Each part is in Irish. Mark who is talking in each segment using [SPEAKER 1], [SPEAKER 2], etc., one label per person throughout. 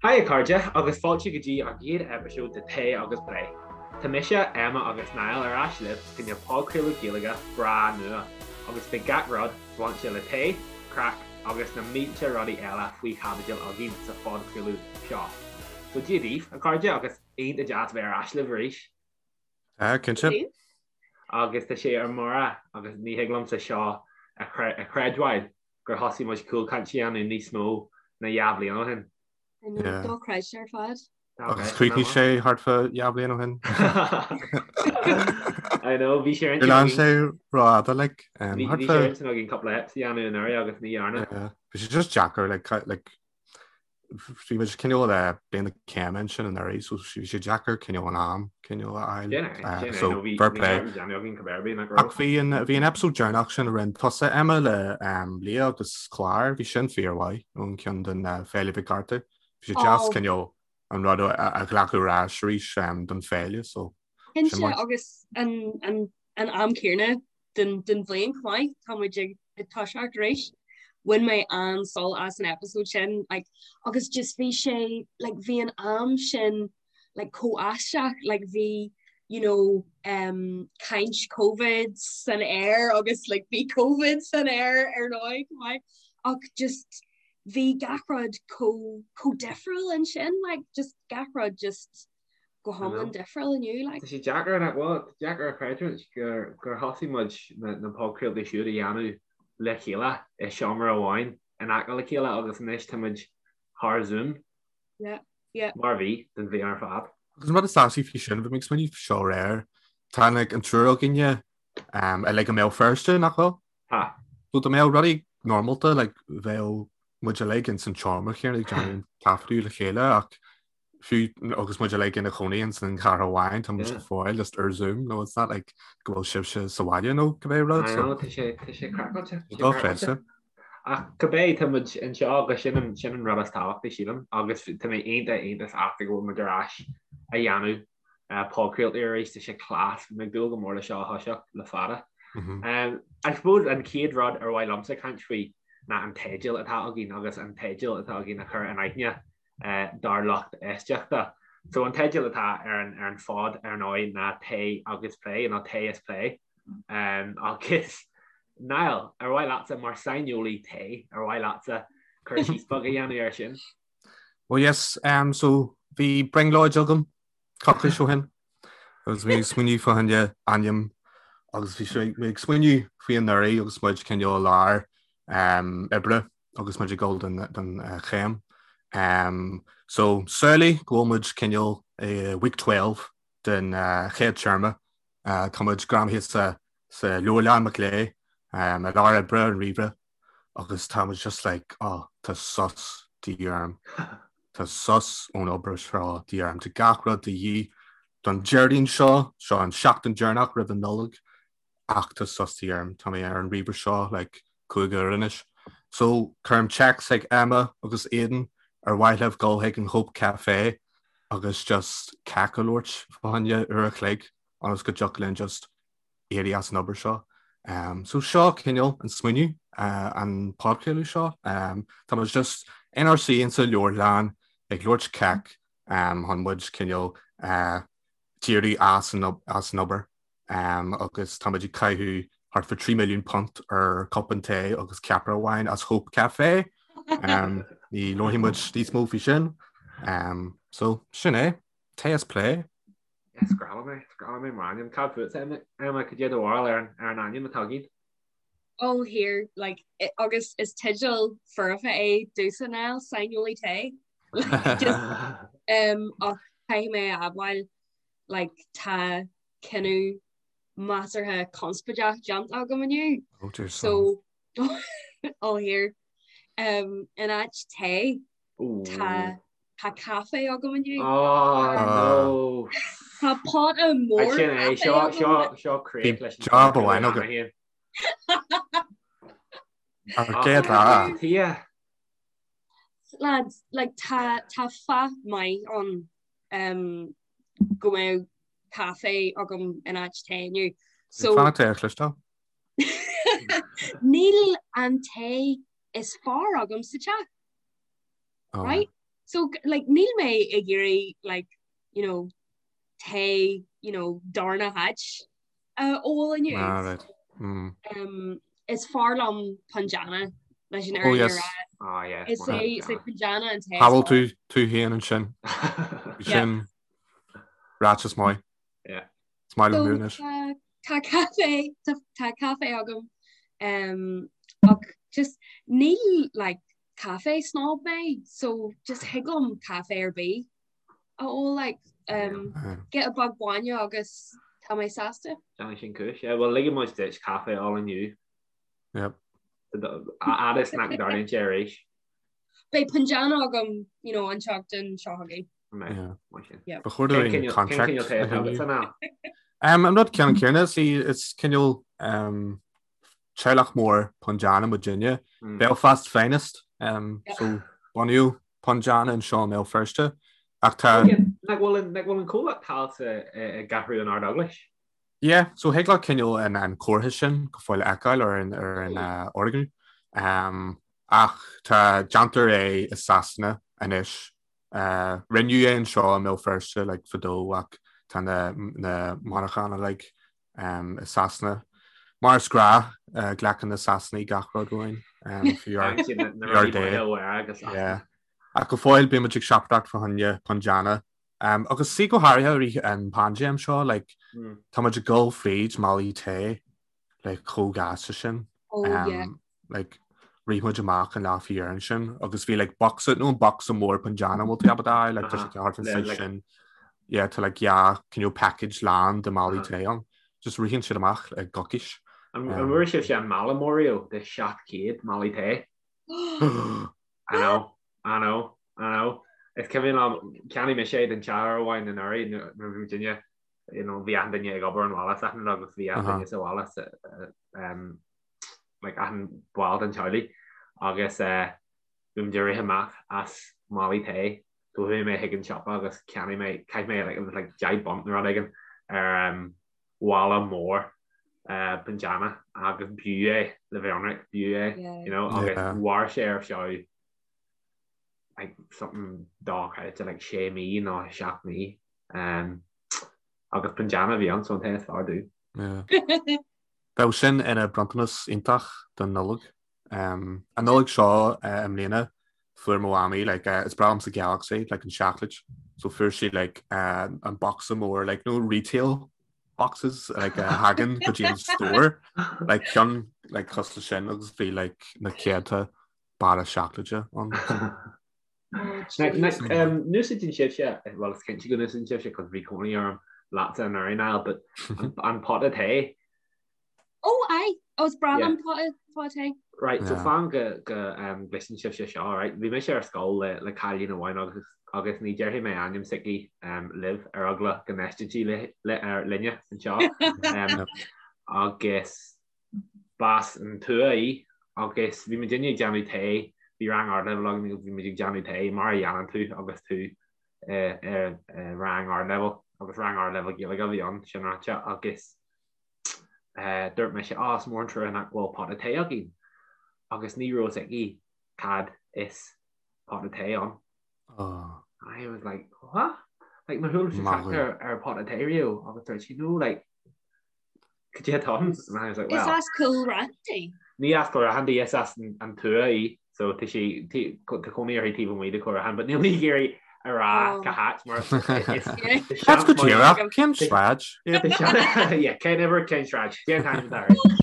[SPEAKER 1] Hi a chairde agus fáilte go dtí an chéad eipeasóid de Tae agus Plé. Tá mise, Emma agus Niall ar ais libh fá choinne podchraoladh Gaeilge breá nua agus beidh gach rud bainte le tae, craic agus na mílte rudaí eile faoi chaibidil againn sa phodchraoladh seo. So Dia daoibh, a chairde, agus iontach deas bheith ar ais libh arís.
[SPEAKER 2] Tá, cinnte.
[SPEAKER 1] Agus tá sé ar mire agus ní thig liomsa seo a chreidbheáil gur thosaigh muid Cúlchaint a dhéanamh níos mó ná 2 bhliain ó shin.
[SPEAKER 3] I know, dochreidte ar fad.
[SPEAKER 2] Agus chríochnaigh sé thart fá 2 bhliain ó shin.
[SPEAKER 1] I know, bhí sé ar
[SPEAKER 2] intinn againn. sé rófhada, like.
[SPEAKER 1] Bhí sé ar intinn againn cúpla eps a dhéanamh anuraidh agus ní dhearna.
[SPEAKER 2] Bhí sé just deacair, like, like, Bhí muid cineál le bliain na céime ansin anuraidh so bhí sé deacair cineál an am cineál a
[SPEAKER 1] fháil. So fair play.
[SPEAKER 2] Ach bhí an bhí an episode deireanach sin a rinne tusa Emma le Leah agus Clár, bhí sin fíormhaith ón ceann den Féile Mhic Arthur. Bhí sé deas cineál an rud a ghlacadh ar ais arís don féile so.
[SPEAKER 3] Cinnte agus an an am céanna den den bhliain chomh maith, tá muid ag ag toiseacht arís. Bhain mé an-sult as an episode sin like agus just bhí sé like bhí an am sin like chomh aisteach like bhí you know um, caint COVID san aer agus like bhí COVID san aer ar ndóigh chomh maith ach just bhí gach rud chomh chomh difriúil ansin like just gach rud just go hiomlán difriúil inniu.
[SPEAKER 1] Like. Tá sé deacair nach bhfuil, tá deacair a chreidiúint gur gur thosaigh muid na na podchraoltaí siúd a dhéanamh le chéile i seomra amháin in aice le chéile agus anois tá muid thar Zoom.
[SPEAKER 3] Yeah, yeah.
[SPEAKER 1] Mar a bhí don bhliain ar fad.
[SPEAKER 2] Agus an rud is deise faoi sin, bhí mé ag smaoineamh faoi seo aréir, tá like, an triúr againne um, uilig i mBéal Feirste, nach bhfuil?
[SPEAKER 1] Tá.
[SPEAKER 2] So dá mbeadh rudaí normálta, like, bheadh muid uilig ins an tseomra chéanna ag déanamh an taifeadadh le chéile ach fiú agus muid uilig ina chónaí ins an chathair amháin, tá muid go fóill just ar Zoom, no it's not like go bhfuil sibhse sa bhaile nó cibé rud.
[SPEAKER 1] I know, tá sé tá sé craiceáilte.
[SPEAKER 2] Tá dochreidte.
[SPEAKER 1] Ach cibé tá muid anseo agus sin an sin an rud is tábhachtaí sílim agus tá mé iontach iontach sásta go bhfuil muid ar ais a dhéanamh podchraoltaí arís, tá sé class, bhí mé ag dúil go mór le seo a thoiseacht le fada. I suppose an chéad rud ar mhaith liomsa caint faoi ná an teideal atá againn agus an teideal atá againn a chur in aithne dár lucht éisteachta. So an teideal atá ar an ar an phod ar ndóigh ná Tae agus Plé nó Tae is Plé. Um, agus Niall, ar mhaith leatsa mar saineolaí tae, ar mhaith leatsa cur síos beag a dhéanamh air sin?
[SPEAKER 2] Well yes, um, so bhí brionglóid agam coicís ó shin agus bhí ag smaoineamh fá choinne ainm agus bhí sé ag smaoineamh faoi anuraidh agus muid cineál i lár um, oibre agus muid ag dul don don chéim. Um, so samhlaigh go bhfuil muid cineál i week 12 den chéad téarma. Uh, tá muid greamaithe sa, sa leabharlann Mac Léinn um, i lár oibre an ríomhaire agus tá muid just like, oh, tá sos de dhíth orm. Tá sos ón obair seo de dhíth orm. Tá gach rud de dhíth don Déardaoin seo, seo an seachtain deireanach roimh an Nollaig, ach tá sos de dhíth orm. Tá mé ar an ríomhaire seo like 5 uair anois. So cuirim text chuig Emma agus Aidan ar mhaith libh dul chuig an Hope Cafe agus just cac a labhairt fá choinne uair a chloig ionas go dtiocfadh linn just éirí as an obair seo. Um, so seo cineál an smaoineamh uh, an podchraoladh seo. Um, tá muid just inár suí insa leabharlann ag labhairt cac um, chun muid cineál uh, díriú as an, as an obair. agus tá muid ag caitheamh thart fá 3 milliún punt ar cupán tae agus ceapaire amháin as Hope Cafe. Ní labharfaidh muid níos mó faoi sin. So sin é, Tae is Plé.
[SPEAKER 1] Is grá liom é, is grá liom é mar ainm. Cad fútsa, Emma, cad é do bharúil ar an ar an ainm atá againn?
[SPEAKER 3] Oh here, like, agus is teideal foirfe é domhsa Niall, saineolaí tae. Like, just, um, ach caithfidh mé a admháil like tá cinneadh measartha conspóideach déanta agam inniu.
[SPEAKER 2] Oh dear
[SPEAKER 3] So oh here um, in áit tae tá tá caife agam inniu.
[SPEAKER 1] Oh no.
[SPEAKER 3] Tá pota mór
[SPEAKER 1] Sin é seo seo seo críoch leis
[SPEAKER 2] an Job amháin agam. Ar céad lá.
[SPEAKER 1] Tia.
[SPEAKER 3] Lads, like tá tá fáth maith ann um, go mbeadh caife agam in áit tae inniu.
[SPEAKER 2] So Fanacht é a chloisteáil.
[SPEAKER 3] Níl an tae is fearr agam sa teach.
[SPEAKER 2] Oh.
[SPEAKER 3] Right? So like níl mé ag iarraidh like you know tae you know darna háit a ól inniu.
[SPEAKER 2] Ah, right. Mm.
[SPEAKER 3] Um, is fearr liom Punjana leis an
[SPEAKER 2] Oh,
[SPEAKER 3] fhírinne a
[SPEAKER 2] yes.
[SPEAKER 3] rá.
[SPEAKER 1] Oh, yeah.
[SPEAKER 3] Is é is é Punjana an tae.
[SPEAKER 2] Shábháil tú tú féin ansin.
[SPEAKER 3] Yeah.
[SPEAKER 2] Sin ráiteas maith.
[SPEAKER 1] Yeah.
[SPEAKER 2] Is maith
[SPEAKER 3] So,
[SPEAKER 2] liom anois.
[SPEAKER 3] tá tá caife tá tá caife agam um, ach just ní like caife snob mé so just thig liom caife ar bith a ól like um, giota beag bainne agus tá mé sásta.
[SPEAKER 1] Déanfaidh sin cúis. Yeah, well ligfidh muid duit caife a ól inniu.
[SPEAKER 2] Yep.
[SPEAKER 1] Fhad is nach dtarlaíonn sé arís.
[SPEAKER 3] Beidh Punjana agam you know, an tseachtain seo chugainn.
[SPEAKER 2] Yeah. Ba chóir dúinn contract a shíniú. Um, an rud ceann céanna sí is cineál um, teaghlach mór Punjana muidinne.
[SPEAKER 1] Mm.
[SPEAKER 2] Belfast Finest. Um,
[SPEAKER 3] Yeah.
[SPEAKER 2] So bunaíodh Punjana anseo i mBéal Feirste. Ach tá
[SPEAKER 1] Nach bhfuil an nach bhfuil an comhlacht thall i gCeathrú an Ard-Eaglais?
[SPEAKER 2] Yeah, so thig leat cineál an an comhartha sin go fóill a fheiceáil ar an ar an uh, fhoirgneamh. Um, ach tá déantar é i Sasana anois. Uh, rinneadh é anseo i mBéal Feirste like, fadó ach tá na, na monarchana like, um, i Sasana. Mar is gnách uh, glacann na Sasanaigh gach rud uainn um, fiú ár
[SPEAKER 1] Siad na na
[SPEAKER 2] fiú ár
[SPEAKER 1] rudaí
[SPEAKER 2] dtae.
[SPEAKER 1] maithe ó agus
[SPEAKER 2] Yeah. Ach go fóill bímid ag siopadóireacht fá choinne Punjana. Um, agus sí go háirithe i rith an paindéim seo, like,
[SPEAKER 1] Mm.
[SPEAKER 2] tá muid ag dul fríd málaí tae like, chomh gasta sin.
[SPEAKER 3] Oh yeah.
[SPEAKER 2] Um, like, rith muid amach an lá faoi dheireadh ansin agus bhí like, boxa nó an boxa mór Punjana bhfuil tú ábalta a fháil, like, tá sé thart an
[SPEAKER 1] Le,
[SPEAKER 2] size
[SPEAKER 1] like-
[SPEAKER 2] sin. Yeah, tá like, yeah, cineál package lán de málaí
[SPEAKER 1] Uh-huh.
[SPEAKER 2] tae ann. Just ritheann siad amach i gcoicís.
[SPEAKER 1] An an bhfuair sibhse an mála mór riamh de 700 málaí tae? I know, I know, I know. Is cuimhin liom, cheannaigh mise é don teach uair amháin anuraidh nuair a bhí muidinne, you know, bhí achan duine ag obair ón bhaile is achan rud agus bhí achan duine sa bhaile sa, um, like achan ball den teaghlaigh agus eh, bhí muid ag rith amach as málaí tae so chuaigh mé chuig an siopa agus cheannaigh mé, chaith mé like, it was like 10 bunt nó rud éigin ar um, mhála mór Punjana agus b'fhiú é le bheith ionraic, b'fhiú é, you know, agus mhair sé ar feadh like something dochreidte like sé mí nó seacht mí um, agus Punjana a bhí ann so an tae is fearr domh.
[SPEAKER 2] Bheadh sin ina bronntanas iontach don Nollaig. Um, an Nollaig seo uh, i mbliana fuair mo mhamaí like, uh, is breá liomsa Galaxy like, an seacláid so fuair sí like, uh, an boxa mór like, nó retail boxes like, uh, thagann go dtí an store like, ceann like, cosúil leis sin agus bhí like, na céadta barra seacláide ann.
[SPEAKER 1] Um, N-úsáideann sibhse, well is cinnte go n-úsáideann sibhse cos bhí cónaí orm leatsa anuraidh Niall, but an, an pota tae
[SPEAKER 3] Oh aye, oh is breá
[SPEAKER 1] Yeah.
[SPEAKER 3] liom pota pota tae.
[SPEAKER 1] Right, so
[SPEAKER 2] Yeah.
[SPEAKER 1] fan go go um, gcloiseann sibhse seo, right? Bhí mise ar scoil le, le cailín amháin agus agus ní déarfaidh mé ainm s'aici um, libh ar eagla go n-éisteann sí le, le, ar, linne anseo. Um, agus b'as an tuath í agus bhí muidinne ag déanamh tae, bhí rang ardleibhéil againn agus bhí muid ag déanamh tae mar a dhéanann tú agus tú i, i, i rang ardleibhéil agus rang ardleibhéil Gaeilge a bhí ann, sin ráite, agus Dúirt mise, Á, is mór an trua nach bhfuil pota tae againn. Agus ní raibh a fhios aici cad is pota tae ann.
[SPEAKER 2] Oh.
[SPEAKER 1] I was like, what? Like, nár chuala sí trácht ar, ar pota tae riamh agus dúirt sí, no, like, cad é atá ann? And I was like,
[SPEAKER 3] Is
[SPEAKER 1] well.
[SPEAKER 3] as Cúil Raithin di?
[SPEAKER 1] Ní as Cúil Raithin di, is as an tuath í. So tá sí, tá cónaí uirthi taobh amuigh de Chúil Raithin, but níl mé ag iarraidh a rá cá háit mar
[SPEAKER 2] That's go díreach, cén sráid?
[SPEAKER 1] Yeah, cén uimhir, cén sráid, cén t-ainm atá uirthi.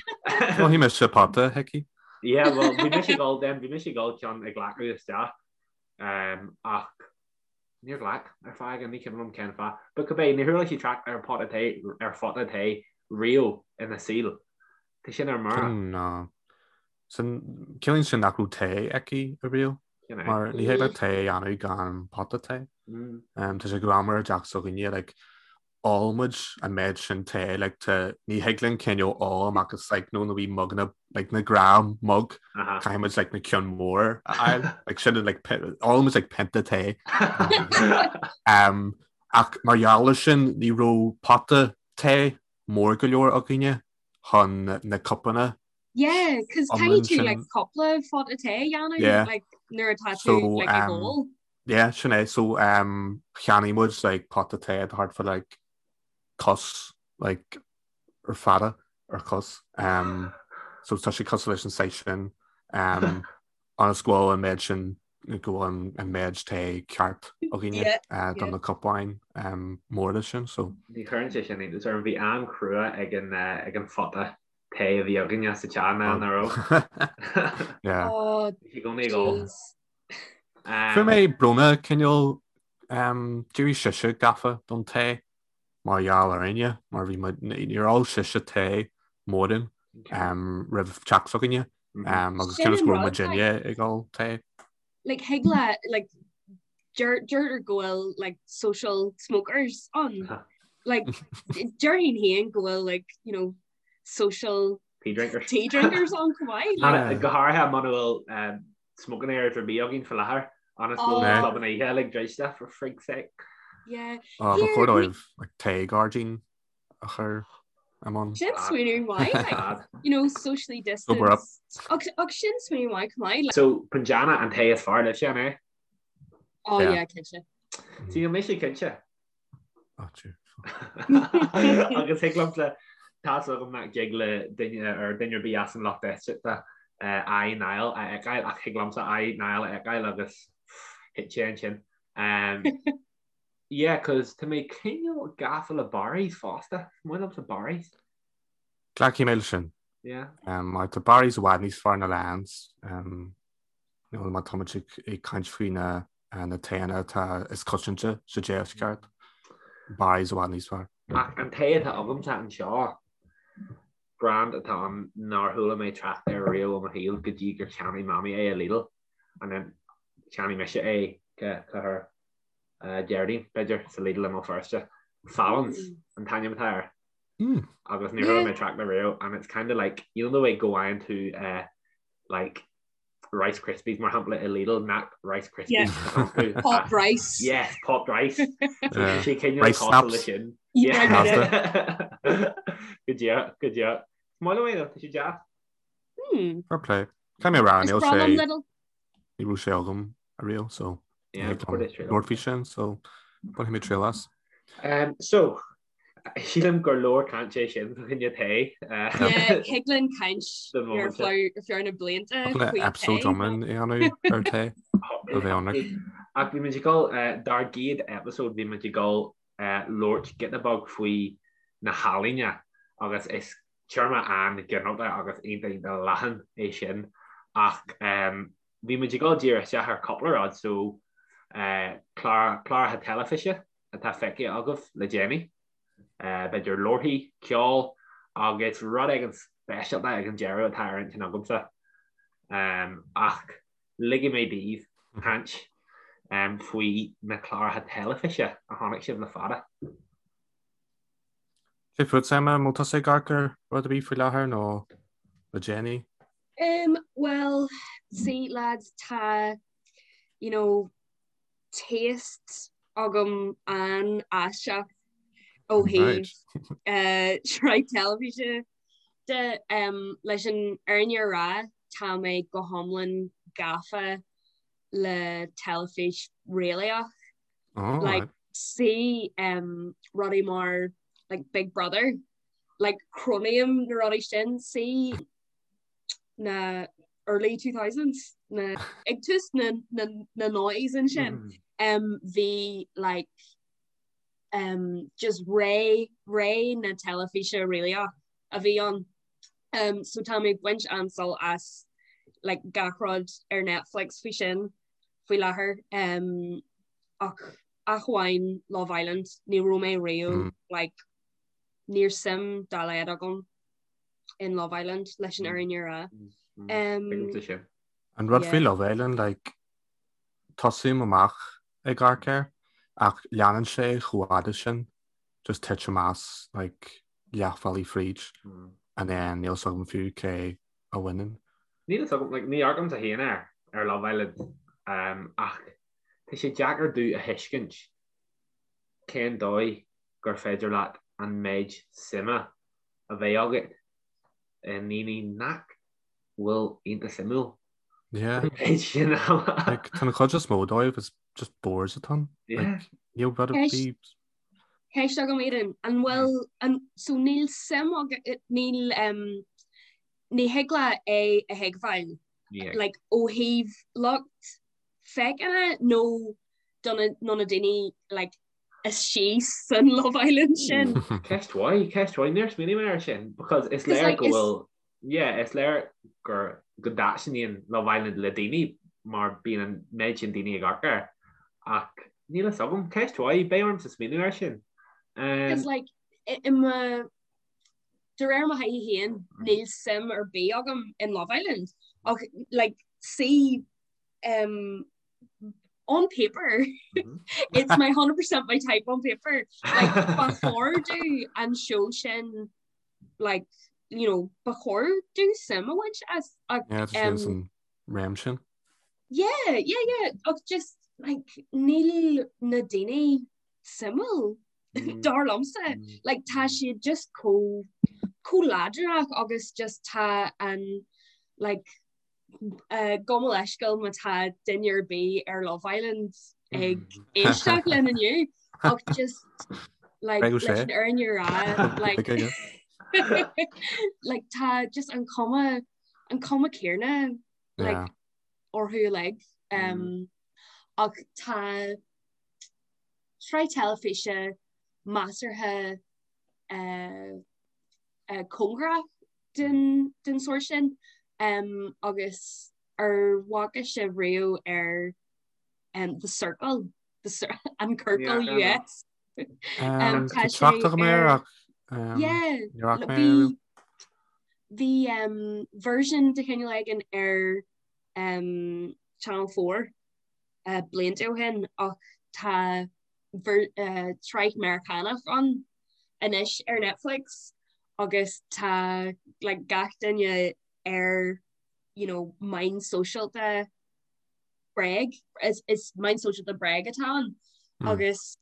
[SPEAKER 2] Mhothaigh mise pota chuici.
[SPEAKER 1] Yeah, well, bhí mise ag dul then, bhí mise ag dul ceann a ghlacadh isteach, ach níor ghlac ar fáth éigin, ní cuimhin liom cén fáth. But cibé, níor chuala sí trácht ar pota tae, ar phota tae riamh ina saol. Tá sin ar mire.
[SPEAKER 2] No. Sin, ciallaíonn sin nach raibh tae aici ariamh, mar ní thig leat tae a dhéanamh gan pota tae. Tá sé greannmhar i dteach s'againne, like, ólann muid an méid sin tae, like, tá, ní thig linn cineál ól amach as, like, nó na wee muganna, like, na gnáth mug, caithfidh muid, like, na ceann mór a fháil, like, sin, like, ólann muid, like, pionta tae. Um, ach mar gheall air sin, ní raibh pota tae mór go leor againne chun na cupanna
[SPEAKER 3] Yeah, cos caithfidh tú like cúpla phota tae a dhéanamh
[SPEAKER 2] Yeah.
[SPEAKER 3] like nuair atá tú
[SPEAKER 2] So,
[SPEAKER 3] like ag
[SPEAKER 2] um,
[SPEAKER 3] ól.
[SPEAKER 2] Yeah, sin é. So um, cheannaigh muid like pota tae thart fá like cos like ar fada ar cos. Um, so tá sé cosúil leis an saghas sin um, ionas go bhfuil an méid sin go bhfuil an méid tae ceart againne yeah, uh, don yeah. na cupáin um, móra sin. So.
[SPEAKER 1] Ní chuireann sé sin iontas orm bhí am crua ag an, uh, ag an phota tae a bhí againne sa teach ná nach raibh.
[SPEAKER 2] Yeah.
[SPEAKER 3] Oh,
[SPEAKER 1] Bhí sé i gcónaí ag ól.
[SPEAKER 2] Fuair mé bronnadh cineál um, d'éirigh sise gafa don tae mar gheall orainne mar bhí muid níor ól sise tae mórán um, roimh teacht s'againne um, agus
[SPEAKER 3] Sin
[SPEAKER 2] cionn is
[SPEAKER 3] an
[SPEAKER 2] go raibh
[SPEAKER 3] rud,
[SPEAKER 2] muidinne ag ól tae.
[SPEAKER 3] Like thig le like deir deirtear go bhfuil like social smokers ann. Like déarfainn féin go bhfuil like you know social
[SPEAKER 1] Tea drinkers.
[SPEAKER 3] tea drinkers ann chomh maith. Like,
[SPEAKER 1] Go háirithe muna bhfuil um, smoking areas ar bith againn faoi láthair ionas go bhfuil
[SPEAKER 2] Oh.
[SPEAKER 1] clubanna oíche uilig druidte for frig's sake.
[SPEAKER 3] yeah.
[SPEAKER 2] Ba
[SPEAKER 3] Here,
[SPEAKER 2] chóir dóibh like, tae gairdín a chur i mbun.
[SPEAKER 3] Sin smaoineamh maith, like,
[SPEAKER 1] Bad.
[SPEAKER 3] you know, socially
[SPEAKER 2] Sober up.
[SPEAKER 3] distanced. Ach, ach sin smaoineamh maith chomh maith. Like,
[SPEAKER 1] So Punjana an tae is fearr libhse an é?
[SPEAKER 3] oh
[SPEAKER 2] Yeah.
[SPEAKER 3] yeah, cinnte.
[SPEAKER 1] See, níl mise cinnte. Agus thig liomsa tá's agam nach dtig le duine ar duine ar bith as an lucht éisteachta aghaidh Niall a fheiceáil ach thig liomsa aghaidh Niall a fheiceáil agus thit sé ansin. Yeah, cos tá mé cineál gafa le Barry's fosta. Is maith liomsa Barry's.
[SPEAKER 2] Glacfaidh mé leis sin.
[SPEAKER 1] Yeah.
[SPEAKER 2] Mar tá Barry's i bhfad níos fearr ná Lyons. Nó má táimid ag caint faoi na na taenna atá is coitianta sa deisceart, Barry's i bhfad níos fearr.
[SPEAKER 1] Ach an tae atá agamsa anseo, brand atá ann nár chuala mé trácht air riamh i mo shaol go dtí gur cheannaigh Mamaí é i Lidl and then cheannaigh mise é cathair Déardaoin, b'fhéidir, sa Lidl i mBéal Feirste. Fallon's an t-ainm atá air. Agus níor chuala mé trácht air riamh and it's kind of like, you know the way go bhfaigheann tú like Rice Krispies mar shampla i Lidl nach Rice Krispies
[SPEAKER 3] yeah. Popped rice.
[SPEAKER 1] Yes, popped rice.
[SPEAKER 2] Yeah.
[SPEAKER 1] Sé cineál
[SPEAKER 2] Rice
[SPEAKER 1] cosúil
[SPEAKER 2] snaps.
[SPEAKER 1] le sin.
[SPEAKER 3] Yeah.
[SPEAKER 1] Go deo, go deo. Is maith liom é though, tá sé deas.
[SPEAKER 3] Hmm.
[SPEAKER 2] Fair play. Caithfidh mé a rá,
[SPEAKER 3] Is
[SPEAKER 2] níl
[SPEAKER 3] breá liom
[SPEAKER 2] sé
[SPEAKER 3] Lidl.
[SPEAKER 2] ní raibh sé agam ariamh so
[SPEAKER 1] Yeah,
[SPEAKER 2] labhairt faoi sin so bainfidh mé triail as.
[SPEAKER 1] Um, so, Sílim gur leor caint é sin fá choinne tae.
[SPEAKER 3] Yeah, thig linn caint ar feadh na blianta faoi tae.
[SPEAKER 2] Episode iomlán a dhéanamh ar tae a bheith ionraic.
[SPEAKER 1] Ach bhí muid ag dul, dár gcéad episode bhí muid ag dul labhairt giota beag faoi na healaíona agus is téarma an-ghinearálta agus iontach iontach leathan é sin ach bhí muid ag dul díreach isteach ar cúpla rud so cláracha teilifíse atá feicthe agaibh le déanaí, b'fhéidir leabharthaí, ceol agus rud éigin speisialta ag an deireadh atá ar intinn agamsa. Ach ligfidh mé daoibh caint faoi na cláracha teilifíse a chonaic sibh le fada.
[SPEAKER 2] Cé fút, Emma, an bhfuil tusa ag amharc ar rud ar bith faoi láthair nó le déanaí?
[SPEAKER 3] Um, well, see lads, tá, you know, taste agam an-aisteach ó thaobh sraith teilifíse de. Leis an fhírinne a rá, tá mé go hiomlán gafa le teilifís réalaíoch. Like, see rudaí mar like Big Brother, like cronaím na rudaí sin, see na early 2000s na ag tús na na na noughties ansin um, bhí like um, just ré ré na teilifíse réalaíoch a bhí ann. Um, so tá mé ag baint an-sult as like gach rud ar Netflix faoi sin faoi láthair um, ach ach amháin Love Island ní raibh mé riamh mm. like níl suim dá laghad agam in Love Island leis an fhírinne a rá.
[SPEAKER 2] An rud faoi Love Island, like, tosaím amach ag amharc air ach leanann sé chomh fada sin, just titim as like leathbhealaigh fríd and then níl 's agam fiú cé a bhaineann.
[SPEAKER 1] Níl 's agam, like, ní amharcaimse féin air ar Love Island um, ach tá sé deacair domh a thuiscint cén dóigh gur féidir leat an méid suime a bheith agat i ndaoine nach bhfuil iontach suimiúil.
[SPEAKER 2] Yeah.
[SPEAKER 1] An méid sin ama.
[SPEAKER 2] Like, tá an chuid is mó dóibh is just boards atá ann. Like, níl rud ar bith.
[SPEAKER 3] Ceist agam Aidan, an bhfuil an so níl suim agat níl um, ní thig leat é a thuigbheáil like ó thaobh lucht féachana nó do na nó na daoine like istigh san Love Island sin.
[SPEAKER 1] Ceist mhaith, ceist mhaith, níor smaoinigh mé air sin because is léir go bhfuil yeah, is léir gur go dtaitníonn Love Island le daoine mar bíonn an méid sin daoine ag amharc air ach níl a fhios agam, ceist mhaith, beidh ormsa smaoineamh air sin.
[SPEAKER 3] Because like i mo de réir mo thaithí féin níl suim ar bith agam in Love Island ach like see um, on paper mm -hmm. it's my 100% my type on paper like ba chóir domh an show sin like you know ba chóir domh suim a bhaint as
[SPEAKER 2] ach yeah, um, réim sin
[SPEAKER 3] yeah yeah yeah ach just like níl na daoine suimiúil mm. dar liomsa mm. like tá siad just chomh chomh ladranach agus just tá an like Gabh mo leithscéal má tá duine ar bith ar Love Island ag éisteacht linn inniu ach just like leis an fhírinne a rá like like tá just an cuma an cuma céanna like orthu uilig um, ach tá sraith teilifíse measartha uh, uh, cóngarach den den sórt sin um, agus ar bhfaca sibh riamh ar um, The Circle the Cir an Ciorcal
[SPEAKER 2] yeah, US um, tá trácht agam air ach
[SPEAKER 3] um, yeah, bhí bhí um, version de chineál éigin ar um, Channel 4 uh, blianta ó shin ach tá ver, uh, sraith Meiriceánach ann anois ar Netflix agus tá like gach duine ar you know meáin sóisialta bréag is is meáin sóisialta bréag atá ann mm. agus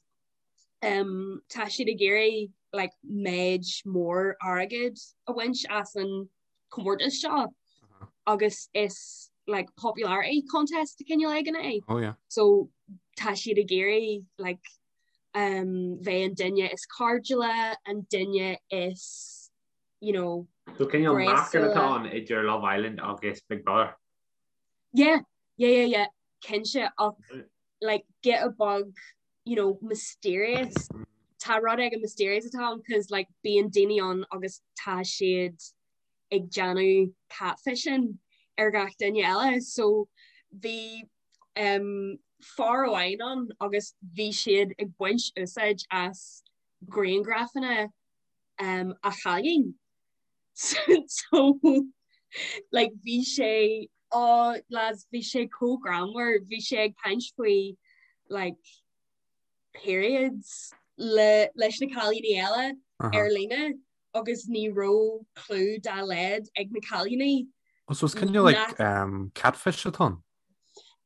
[SPEAKER 3] um, tá siad ag iarraidh like méid mór airgid a bhaint as an comórtas seo uh -huh. agus is like popularity contest de chineál éigin é.
[SPEAKER 2] Oh, yeah.
[SPEAKER 3] So tá siad ag iarraidh like um, bheith an duine is cairdiúla, an duine is, you know,
[SPEAKER 1] So cineál meascán atá ann idir Love Island agus Big Brother.
[SPEAKER 3] Yeah, yeah, yeah, yeah, cinnte ach like giota beag, you know, mysterious. Tá rud éigin mysterious atá ann cos like bíonn daoine ann agus tá siad ag déanamh catfishing ar gach duine eile so bhí um, fear amháin ann agus bhí siad ag baint úsáid as grianghrafanna um, a chailín. so like, bhí sé oh, lads, bhí sé chomh greannmhar, bhí sé ag caint faoi like, periods le, leis na cailíní eile uh -huh. ar líne agus ní raibh clue dá laghad ag na cailíní.
[SPEAKER 2] Oh, so it's kind of like um, catfish atá ann?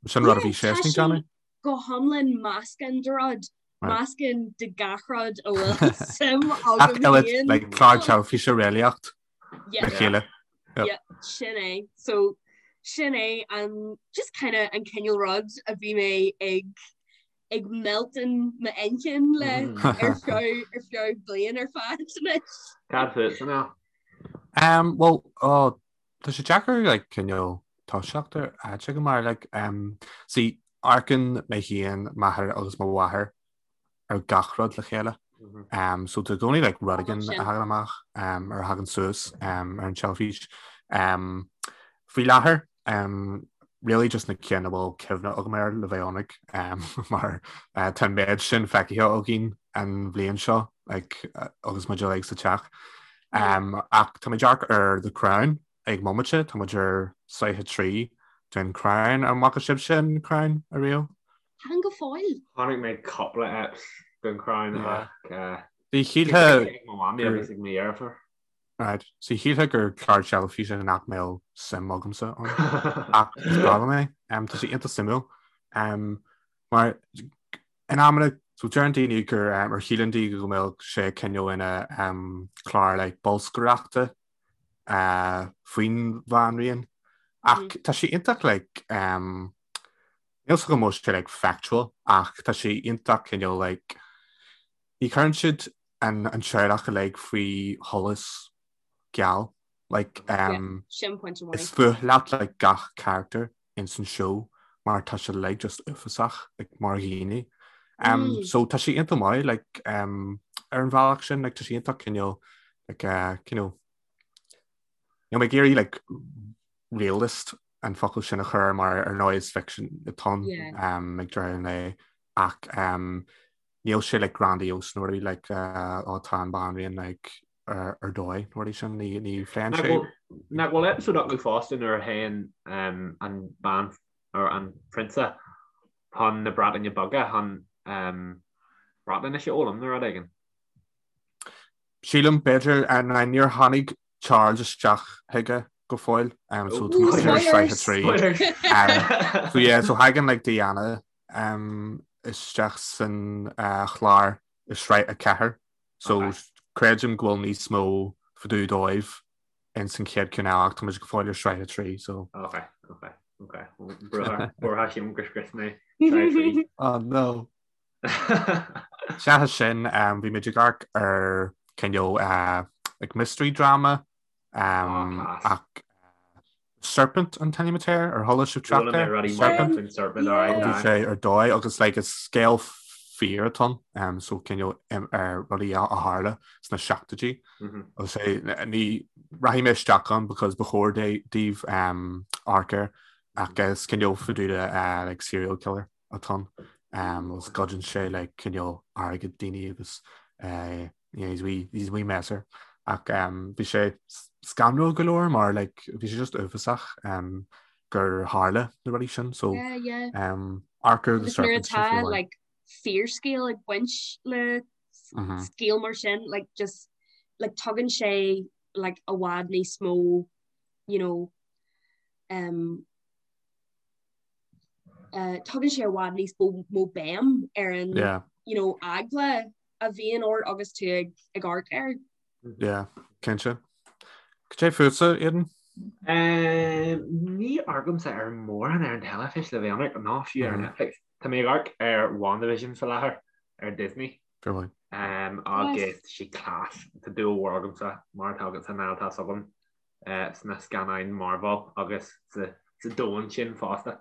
[SPEAKER 2] Sin rud a bhí sé ag déanamh?
[SPEAKER 3] Go hiomlán meascán de rud, meascán de gach rud a bhfuil suim agam
[SPEAKER 2] féin. Like clár teilifíse réalaíocht le chéile.
[SPEAKER 3] Yeah, sin é. So sin é an just kind of an cineál rud a bhí mé ag ag melltan m'inchinn le ar feadh ar feadh bliain ar fad anois.
[SPEAKER 1] Cad fútsa now?
[SPEAKER 2] Um, well, oh, tá sé deacair like, cineál toiseacht ar áit go mar like, um, see, amharcann mé féin, m'athair agus mo mháthair ar gach rud le chéile. Mm -hmm. um, so tá i gcónaí like, rud éigin a thagann amach um, ar a thagann suas um, ar an teilifís. Um, faoi láthair um, really just na cinn a bhfuil cuimhne agam air le bheith ionraic um, mar uh, tá an méid sin feicthe againn an bhliain seo like, uh, agus muid uilig sa teach. Um, ach tá muid ag amharc ar The Crown ag an mbomaite, tá muid ar sraith a 3 den Crown an bhfaca sibhse an Crown ariamh?
[SPEAKER 3] Chan go fóill.
[SPEAKER 1] Chonaic mé cúpla eps den Crown ach
[SPEAKER 2] Bhí shílfeá
[SPEAKER 1] ag mo mhamaí agus ag mo dheirfiúr.
[SPEAKER 2] Right. So shílfeá gur clár teilifíse nach mbeadh suim agamsa ann. Ach is breá liom é. Um, tá sé iontach suimiúil. Um, mar in amanna so deireann daoine gur um, ar shíleann daoine go mbeadh sé cineál ina um, clár like, bolscaireachta uh, faoin bhanríon. Ach mm. tá sé iontach like, um, Níl 's agam an bhfuil sé like factual ach tá sé iontach cineál like ní chuireann siad an an teaghlach uilig faoi sholas geal like um,
[SPEAKER 3] Sin pointe
[SPEAKER 2] is fuath leat like gach character ins an show mar tá sé like just uafásach like mar dhaoine. Um, mm. So tá sé iontach maith like um, ar an bhealach sin like tá sé iontach cineál like uh, cineál Níl mé ag iarraidh like realist an focal sin a chur mar ar ndóigh is fiction atá ann um, ag deireadh an lae ach um, níl sé like grandiose nó rudaí like uh, ó tá an banríon like ar, ar dóigh nó rudaí sin ní, ní phléann
[SPEAKER 1] sé. Nach bhfuil episode acu fosta nuair a théann um, an bean or an prionsa chun na Breataine Bige chun um, Breatnais a fhoghlaim nó rud éigin.
[SPEAKER 2] Sílim, b'fhéidir, ná níor tháinig Charles isteach chuige go fóill, um, so tá muid ar sraith a 3. Um, so yeah, so thagann like Diana um, isteach san uh, chlár i sraith a 4, so okay. creidim go bhfuil níos mó fá dtaobh dóibh in san chéad ceann eile ach tá muid go fóill ar sraith a 3, so.
[SPEAKER 1] Okay, okay, okay. Buartha sílim gur scrios mé sraith a 3.
[SPEAKER 2] Oh no. Seachas sin, bhí muid ag amharc ar cineál like mystery drama ach Serpent an t-ainm atá air, ar chuala sibh trácht air?
[SPEAKER 1] Serpent. Serpent,
[SPEAKER 2] Bhí sé ar dóigh agus like is scéal fíor atá ann, so cineál ar rudaí a tharla sna seachtóidí. Agus é ní rachaidh mé isteach ann because ba chóir daoibh amharc air ach is cineál fá dtaobh de like serial killer. atá ann agus goideann sé like cineál airgead daoine agus eh, you know, he's wee, he's wee messer ach um, bhí sé scanrúil go leor mar like, bhí sé just uafásach um, gur tharla na rudaí sin so
[SPEAKER 3] yeah, yeah.
[SPEAKER 2] Um, amharc ar The
[SPEAKER 3] Serpent tá like fíorscéal ag baint le mm -hmm. scéal mar sin like just like tugann sé like i bhfad níos mó you know um, Tugann sé i bhfad níos mó béim ar an you know, eagla a bhíonn ort agus tú ag ag amharc air.
[SPEAKER 2] Yeah, cinnte. Cad é fútsa, Aidan?
[SPEAKER 1] Ní amharcaimse ar mórán ar an teilifís le bheith ionraic, ná fiú ar Netflix. Tá mé ag amharc ar WandaVision faoi láthair ar Disney.
[SPEAKER 2] Fair play.
[SPEAKER 1] Agus tá sé class. Tá dúil mhór agamsa, mar atá agatsa Niall, tá's agam. sna scannáin Marvel agus sa domhan sin fosta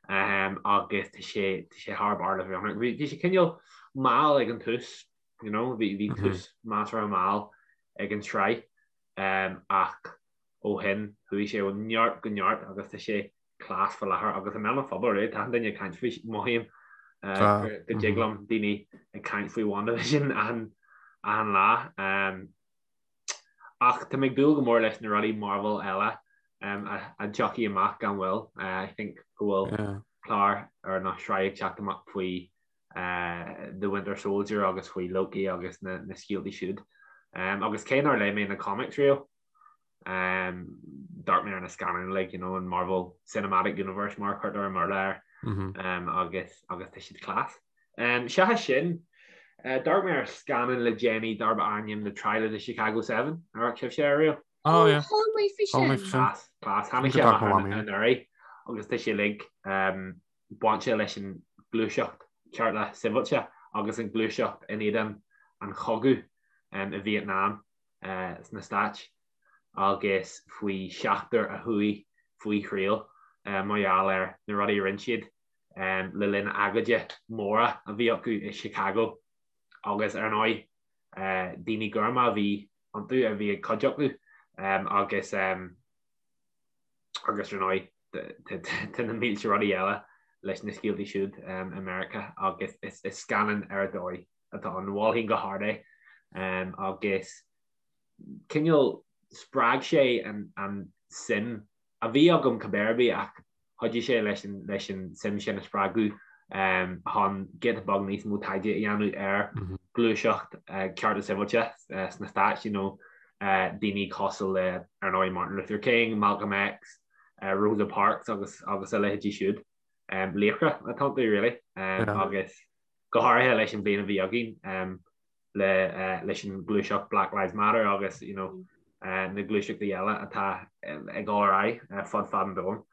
[SPEAKER 1] agus tá sé tá sé thar barr le bheith ionraic. Bhí sé cineál mall ag an tús, you know, bhí bhí tús measartha mall ag an tsraith ach ó shin chuaigh sé ó neart go neart agus tá sé class faoi láthair agus i mbéal an phobail, really, tá achan duine ag caint faoi, mothaím go dtig liom daoine ag caint faoi WandaVision achan achan lá. Ach tá mé ag dúil go mór leis na rudaí Marvel eile a dtiocfaidh amach gan mhoill. I think go bhfuil clár ar nó sraith ag teacht amach faoi The Winter Soldier agus faoi Loki agus na scéaltaí siúd. Agus cé nár léigh mé na comics riamh, d'amharc mé ar na scannáin uilig, you know, an Marvel Cinematic Universe mar a chuirtear i mBéarla air, agus agus tá siad class. Seachas sin, d'amharc mé ar scannán le déanaí darb ainm The Trial of the Chicago 7, ar amharc sibhse air
[SPEAKER 2] riamh? Oh yeah.
[SPEAKER 3] Chuala mé faoi sin.
[SPEAKER 1] Class, class. Tháinig sé amach anuraidh agus tá sé uilig bainte leis an gluaiseacht cearta sibhialta agus an gluaiseacht in éadan an chogaidh i Vietnam. sna Stáit agus faoi sheachtar a chuaigh faoi thriail mar gheall ar na rudaí a rinne siad le linn agóide móra a bhí acu i Chicago agus ar ndóigh daoine gorma a bhí iontu a bhí ag cuid acu agus agus ar ndóigh tá na mílte rudaí eile leis na scéaltaí siúd i Meiriceá agus is scannán ar dóigh atá ann. Mholfainn go hard é agus cineál spreag sé an suim a bhí agam cibé ar bith ach chuidigh sé leis an leis an suim sin a spreagadh chun giota beag níos mó taighde a dhéanamh ar ghluaiseacht cearta sibhialta sna Stáit, you know, daoine cosúil le ar ndóigh Martin Luther King, Malcolm X, Rosa Parks agus agus a leithéidí siúd. Laochra atá iontu really agus go háirithe leis an bhliain a bhí againn le leis an gluaiseacht Black Lives Matter agus you know na gluaiseachtaí eile atá ag dul ar aghaidh fud fad an domhain.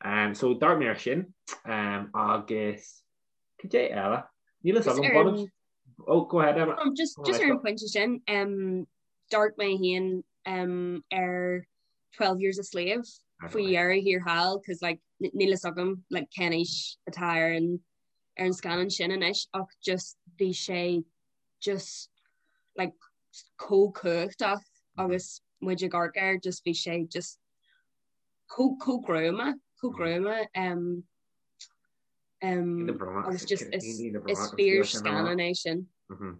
[SPEAKER 1] Um, so d'amharc mé ar sin um, agus cad é eile? Níl a fhios agam bainim Oh, go ahead Emma.
[SPEAKER 3] Um, just, just ar an pointe sin um, d'amharc mé féin um, ar 12 Years a Slave faoi dheireadh thiar thall cos like, níl a fhios agam like, cén aois atá ar an ar an scannán sin anois ach just bhí sé just like chomh cumhachtach agus muid ag amharc air just bhí sé just chomh chomh gruama chomh gruama um, um, agus just is is fíor scannán é sin.
[SPEAKER 1] Mhm.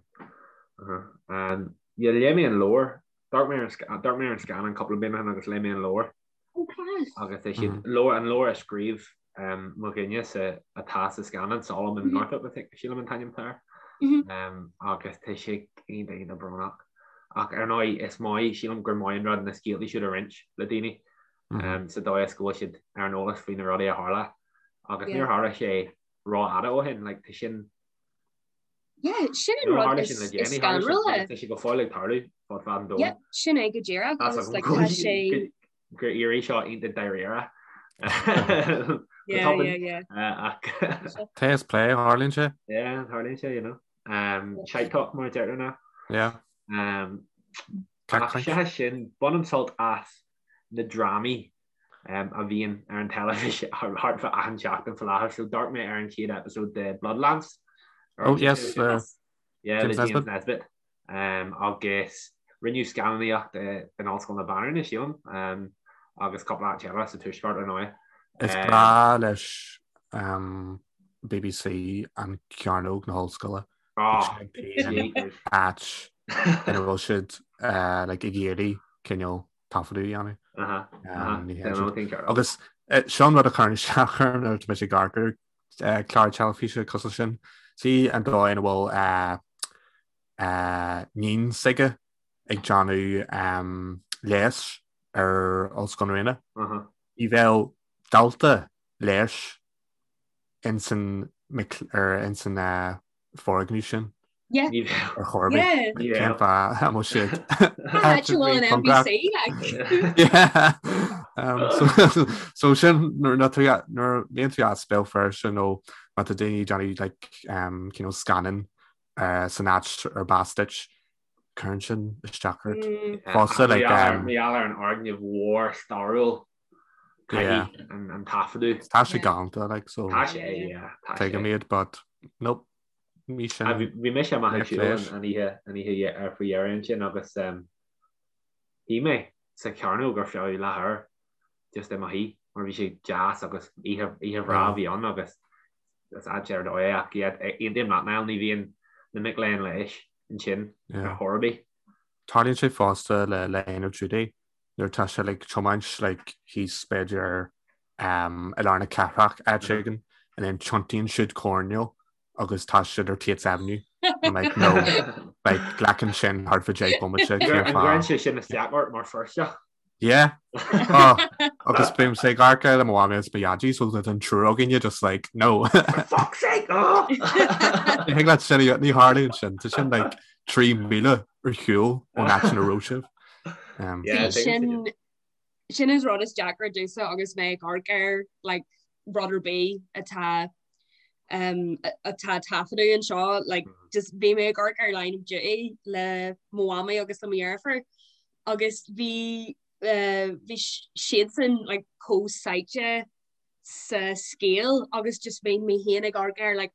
[SPEAKER 1] Uh-huh. Um, yeah, léigh mé an leabhar. D'amharc mé ar an sc- d'amharc mé ar an scannán cúpla bliain ó shin agus léigh mé an leabhar.
[SPEAKER 3] Oh, class.
[SPEAKER 1] Agus tá siad leabhar an leabhar a scríobh um, mo dhuine sa atá sa scannán Solomon Northup I think sílim an t-ainm atá air.
[SPEAKER 3] Mhm.
[SPEAKER 1] Um, agus tá sé iontach iontach brónach. Ach ar ndóigh is maith sílim gur maith an rud na scéalta siúd a roinnt le daoine um, sa dóigh is go bhfuil siad ar an eolas faoi na rudaí a tharla. Agus
[SPEAKER 3] Yeah.
[SPEAKER 1] níor tharla sé rófhada ó shin, like, tá sin
[SPEAKER 3] Yeah, sin an rud is scanrúla.
[SPEAKER 1] Tá sé go fóill ag tarlú fud fad an domhain.
[SPEAKER 3] Yeah, sin é go díreach agus like tá sé
[SPEAKER 1] gur éirigh seo iontach dáiríre.
[SPEAKER 3] Yeah, yeah, yeah.
[SPEAKER 1] Ach
[SPEAKER 2] Tá is plé tharlaíonn sé?
[SPEAKER 1] Yeah, tharlaíonn sé, you know. Um, shite talk mar a deirtear ná.
[SPEAKER 2] Yeah.
[SPEAKER 1] Um, ach sé sin bainim sult as na drámaí a bhíonn ar an teilifís thart fá achan seachtain faoi láthair. So d'amharc mé ar an chéad episode de Bloodlands.
[SPEAKER 2] Oh yes, uh,
[SPEAKER 1] yeah,
[SPEAKER 2] James
[SPEAKER 1] le James
[SPEAKER 2] Nesbitt.
[SPEAKER 1] Nesbitt. Um, agus rinneadh scannánaíocht in Ollscoil na Banríona sílim um, agus cúpla áit eile sa tuaisceart ar ndóigh.
[SPEAKER 2] Is
[SPEAKER 1] Um,
[SPEAKER 2] breá leis um, BBC an cearnóg na hollscoile.
[SPEAKER 1] oh,
[SPEAKER 2] Áit ina bhfuil siad uh, like, ag iarraidh cineál taifeadadh a dhéanamh. Agus seo an rud a chuireann isteach orm nuair atá mise ag amharc ar chlár teilifíse cosúil sin. Sí an dóigh ina bhfuil níon s'aige ag déanamh leighis ar Ollscoil na Ríona. Ní bheadh dalta leighis insan insan foirgneamh sin.
[SPEAKER 3] Yeah.
[SPEAKER 1] Ní bheadh.
[SPEAKER 2] Ar chor ar bith.
[SPEAKER 3] Yeah.
[SPEAKER 2] Cén fáth a mbeadh siad
[SPEAKER 3] Áit a bhfuil an NBC like.
[SPEAKER 2] Yeah. Um, so, so sin nuair nuair tú nuair a bhíonn tú as Béal Feirste nó má tá daoine ag déanamh like, um, cineál scannán uh, san áit ar b'as duit, cuireann sin isteach ort.
[SPEAKER 3] Mm.
[SPEAKER 2] Fosta like, um,
[SPEAKER 1] Mar gheall ar an fhoirgneamh mhór stairiúil caithfidh an, an taifeadadh.
[SPEAKER 2] Tá sé galánta like, so
[SPEAKER 1] Tá sé, yeah, tá sé.
[SPEAKER 2] tuigim iad, but nope. Ní sin.
[SPEAKER 1] Bhí mise amach ag
[SPEAKER 2] Níor
[SPEAKER 1] siúl
[SPEAKER 2] phléis.
[SPEAKER 1] an oíche an oíche ar faoi dheireadh ansin agus shuigh mé sa chearnóg ar feadh leathuair just i mo shuí mar bhí sé deas agus oíche oíche bhreá a bhí ann agus is áit ar dóigh é ach yeah, aontaím leat Niall, ní bhíonn na mic léinn leighis ansin ar chor ar bith.
[SPEAKER 2] Tarlaíonn sé fosta le Line of Duty nuair atá sé like tiomáint like thíos b'fhéidir um, i lár na cathrach áit éigin and then tiontaíonn siad coirnéal agus tá siad ar Tates Avenue. I'm like no like glacann sin thart fá 10 bomaite
[SPEAKER 1] An
[SPEAKER 2] cén fáth.
[SPEAKER 1] gcuireann sé sin isteach ort mar Feirsteach?
[SPEAKER 2] Yeah. Oh, agus bímse ag amharc air le mo mhamaí agus mo dhaidí so tá an triúr againne just like no.
[SPEAKER 1] For fuck's sake! Oh!
[SPEAKER 2] Ní thig leat sin a ní tharlaíonn sin. Tá sin like 3 míle ar shiúl ón áit ina raibh sibh. Um,
[SPEAKER 1] Yeah,
[SPEAKER 3] Bhí sin sin is rud is deacra domhsa agus mé ag amharc ar like rud ar bith atá um, atá taifeadadh anseo like just bhí mé ag amharc ar Line of Duty le mo mhamaí agus le mo dheirfiúr agus bhí uh, bhí siadsan like chomh sáite sa scéal agus just bhí mé féin ag amharc air like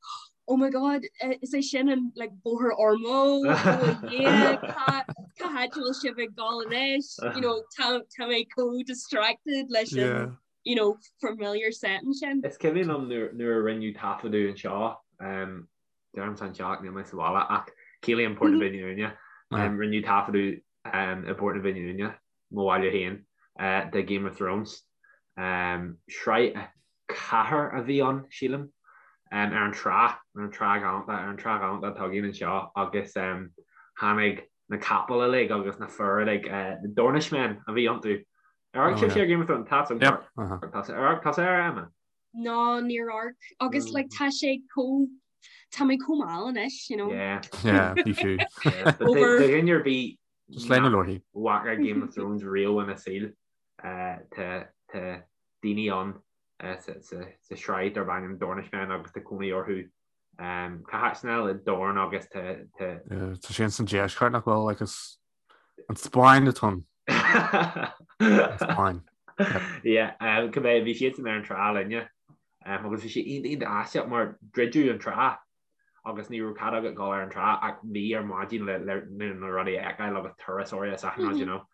[SPEAKER 3] oh my god eh, is é sin an like bóthar Ormeau oh yeah cá cá háit a bhfuil sibh ag dul anois you know tá tá mé chomh distracted leis an
[SPEAKER 2] Yeah.
[SPEAKER 3] you know familiar setting sin.
[SPEAKER 1] Is cuimhin liom nuair nuair a rinneadh taifeadadh anseo, um, deirimse anseo ach níl mé sa bhaile ach ciallaím Port na Binne Uaine, um, rinneadh taifeadadh um, i bPort na Binne Uaine, mo bhaile féin, uh, de Game of Thrones. Um, sraith 4 a bhí ann, sílim, um, ar an trá, ar an trá ghalánta, ar an trá ghalánta atá againn anseo agus um, tháinig na capaill uilig agus na fir uilig, uh, na Dornishmen a bhí iontu. Ar amharc sibhse ar Game of Thrones? Tá
[SPEAKER 2] Yep. Uh-huh.
[SPEAKER 1] Tá ar tá ar Emma?
[SPEAKER 3] Ná níor amharc agus like tá sé chomh tá mé chomh mall anois, you know.
[SPEAKER 1] Yeah.
[SPEAKER 2] Yeah, ní fiú.
[SPEAKER 1] Yeah. But
[SPEAKER 3] Over.
[SPEAKER 1] Do dhuine ar bith
[SPEAKER 2] Just léigh na leabharthaí.
[SPEAKER 1] bhfaca Game of Thrones riamh ina saol, uh, tá tá daoine ann. sa sraith darb ainm Dornishmen agus tá cónaí orthu cá háit Niall i Dorne agus tá
[SPEAKER 2] Tá sé san deisceart nach bhfuil like is an Spáinn atá ann. An
[SPEAKER 1] Spáinn. Yeah, cibé bhí siadsan ar an trá linne agus bhí sé iontach iontach aisteach mar druideadh an trá agus ní raibh cead agat dul ar an trá ach mí ar maidin le na rudaí a fheiceáil agus turasóirí is achan rud, you know.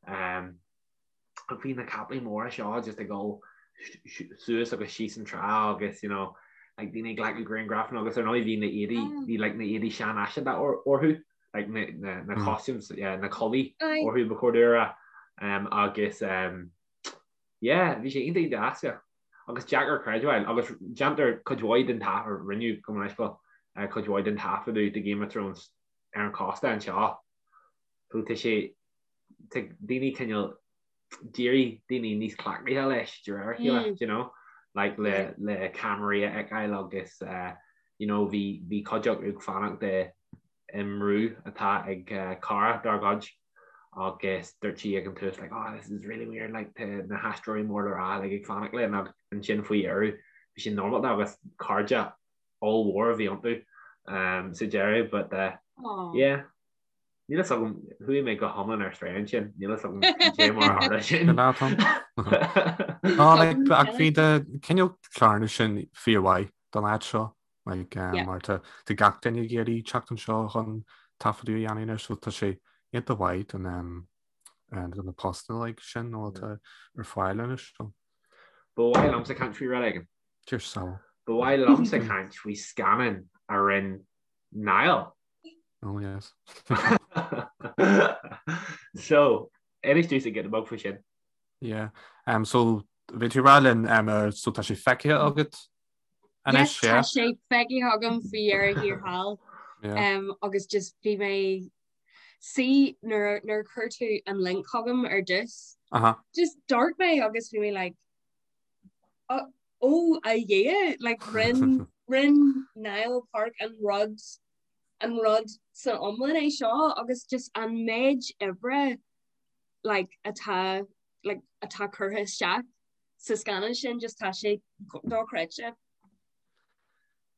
[SPEAKER 1] Ach bhí na capaillí móra seo just ag dul suas agus síos an trá agus you know like daoine ag glacadh grianghrafanna agus ar ndóigh bhí na éadaí bhí like na éadaí seanfhaiseanta orthu like na na na costumes yeah, na culaith orthu ba chóir domh a rá um, agus um, yeah bhí sé iontach iontach aisteach agus deacair creidbheáil agus déantar cuid mhaith den taifead rinneadh go minic uh, cuid mhaith den taifeadadh de Game of Thrones ar an chósta anseo so tá sé tá daoine cineál d'éirigh daoine níos cleachtaithe leis de réir a chéile, do you know, like le le ceamaraí a fheiceáil agus uh, you know, bhí bhí cuid acu ag fanacht i i mbrú atá ag uh, cara dár gcuid agus dúirt sí ag an tús like, oh, this is really weird, like, tá na haisteoirí mór le rá like, ag fanacht linn agus ansin faoi dheireadh bhí sé normálta agus cairde ollmhór a bhí iontu um, sa deireadh, but uh, yeah. Níl a fhios agam, chuaigh mé go hiomlán ar strae ansin, níl a fhios agam cé mar a tharla sin.
[SPEAKER 2] Ná like ach bhí de cineál cláranna sin fíormhaith don áit seo like um, mar tá tá gach duine ag iarraidh teacht anseo chun taifeadadh a dhéanamh anois so tá sé iontach mhaith don um, uh, don na postanna like sin nó atá ar fáil anois so.
[SPEAKER 1] Ba mhaith liomsa caint faoi rud éigin.
[SPEAKER 2] Cheers Sal.
[SPEAKER 1] Ba mhaith liomsa caint faoi scannán a rinne Niall.
[SPEAKER 2] Oh yes.
[SPEAKER 1] So, inis domhsa giota beag faoi sin.
[SPEAKER 2] Yeah. Um, so, bhí tú ag rá linn, um, uh, so tá sé feicthe agat
[SPEAKER 3] anois, Yes, yeah? tá sé feicthe agam faoi dheireadh thiar thall. Yeah. Um, agus just bhí mé see nuair nuair a chuir tú an link chugam ar dtús.
[SPEAKER 2] Uh-huh.
[SPEAKER 3] Just d'amharc mé agus bhí mé like oh, oh a Dhia, like rinne rinne Niall Park an rud an rud san iomlán é seo agus just an méid oibre like atá like atá curtha isteach sa scannán sin just tá sé dochreidte.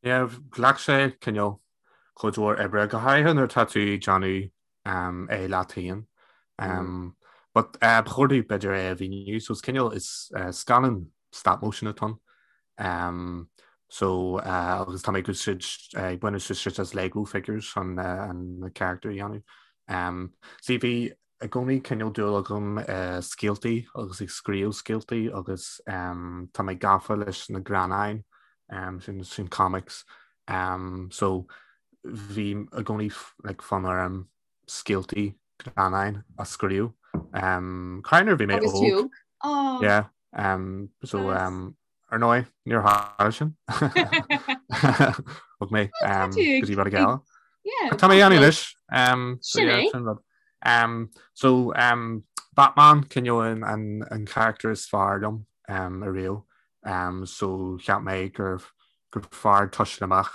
[SPEAKER 2] Yeah, ghlac sé cineál cuid mhór oibre go háirithe nuair atá tú ag déanamh um, é leat féin. Um, but uh, ba chóir domh b'fhéidir é a mhíniú, so is cineál is uh, scannán stop motion atá ann. Um, so uh, agus tá mé ag úsáid uh, ag baint úsáid as Lego figures chun uh, an na character a dhéanamh. Um, see bhí i gcónaí cineál dúil agam uh, scéaltaí agus ag scríobh scéaltaí agus um, tá mé gafa leis na greannáin um, sin, sin comics. Um, so bhí i gcónaí like, fonn orm scéaltaí greannáin a scríobh. Um, Cé nuair bhí mé
[SPEAKER 3] Agus tú
[SPEAKER 2] óg.
[SPEAKER 3] óg? Oh,
[SPEAKER 2] Yeah. Um, so
[SPEAKER 3] nice.
[SPEAKER 2] um, ar ndóigh, níor tharla sin. Thug mé
[SPEAKER 3] Well, tá
[SPEAKER 2] um,
[SPEAKER 3] tú
[SPEAKER 2] go
[SPEAKER 3] ag,
[SPEAKER 2] dtí rud
[SPEAKER 3] ag,
[SPEAKER 2] eile.
[SPEAKER 3] yeah,
[SPEAKER 2] Tá mé
[SPEAKER 3] tá
[SPEAKER 2] ann
[SPEAKER 3] tú.
[SPEAKER 2] anois. Um, so
[SPEAKER 3] Sin
[SPEAKER 2] yeah,
[SPEAKER 3] é.
[SPEAKER 2] sin rud. Um, so um, Batman cineál an, an, an character is fearr liom um, ariamh. Um, so cheap mé gur gur fearr toiseacht amach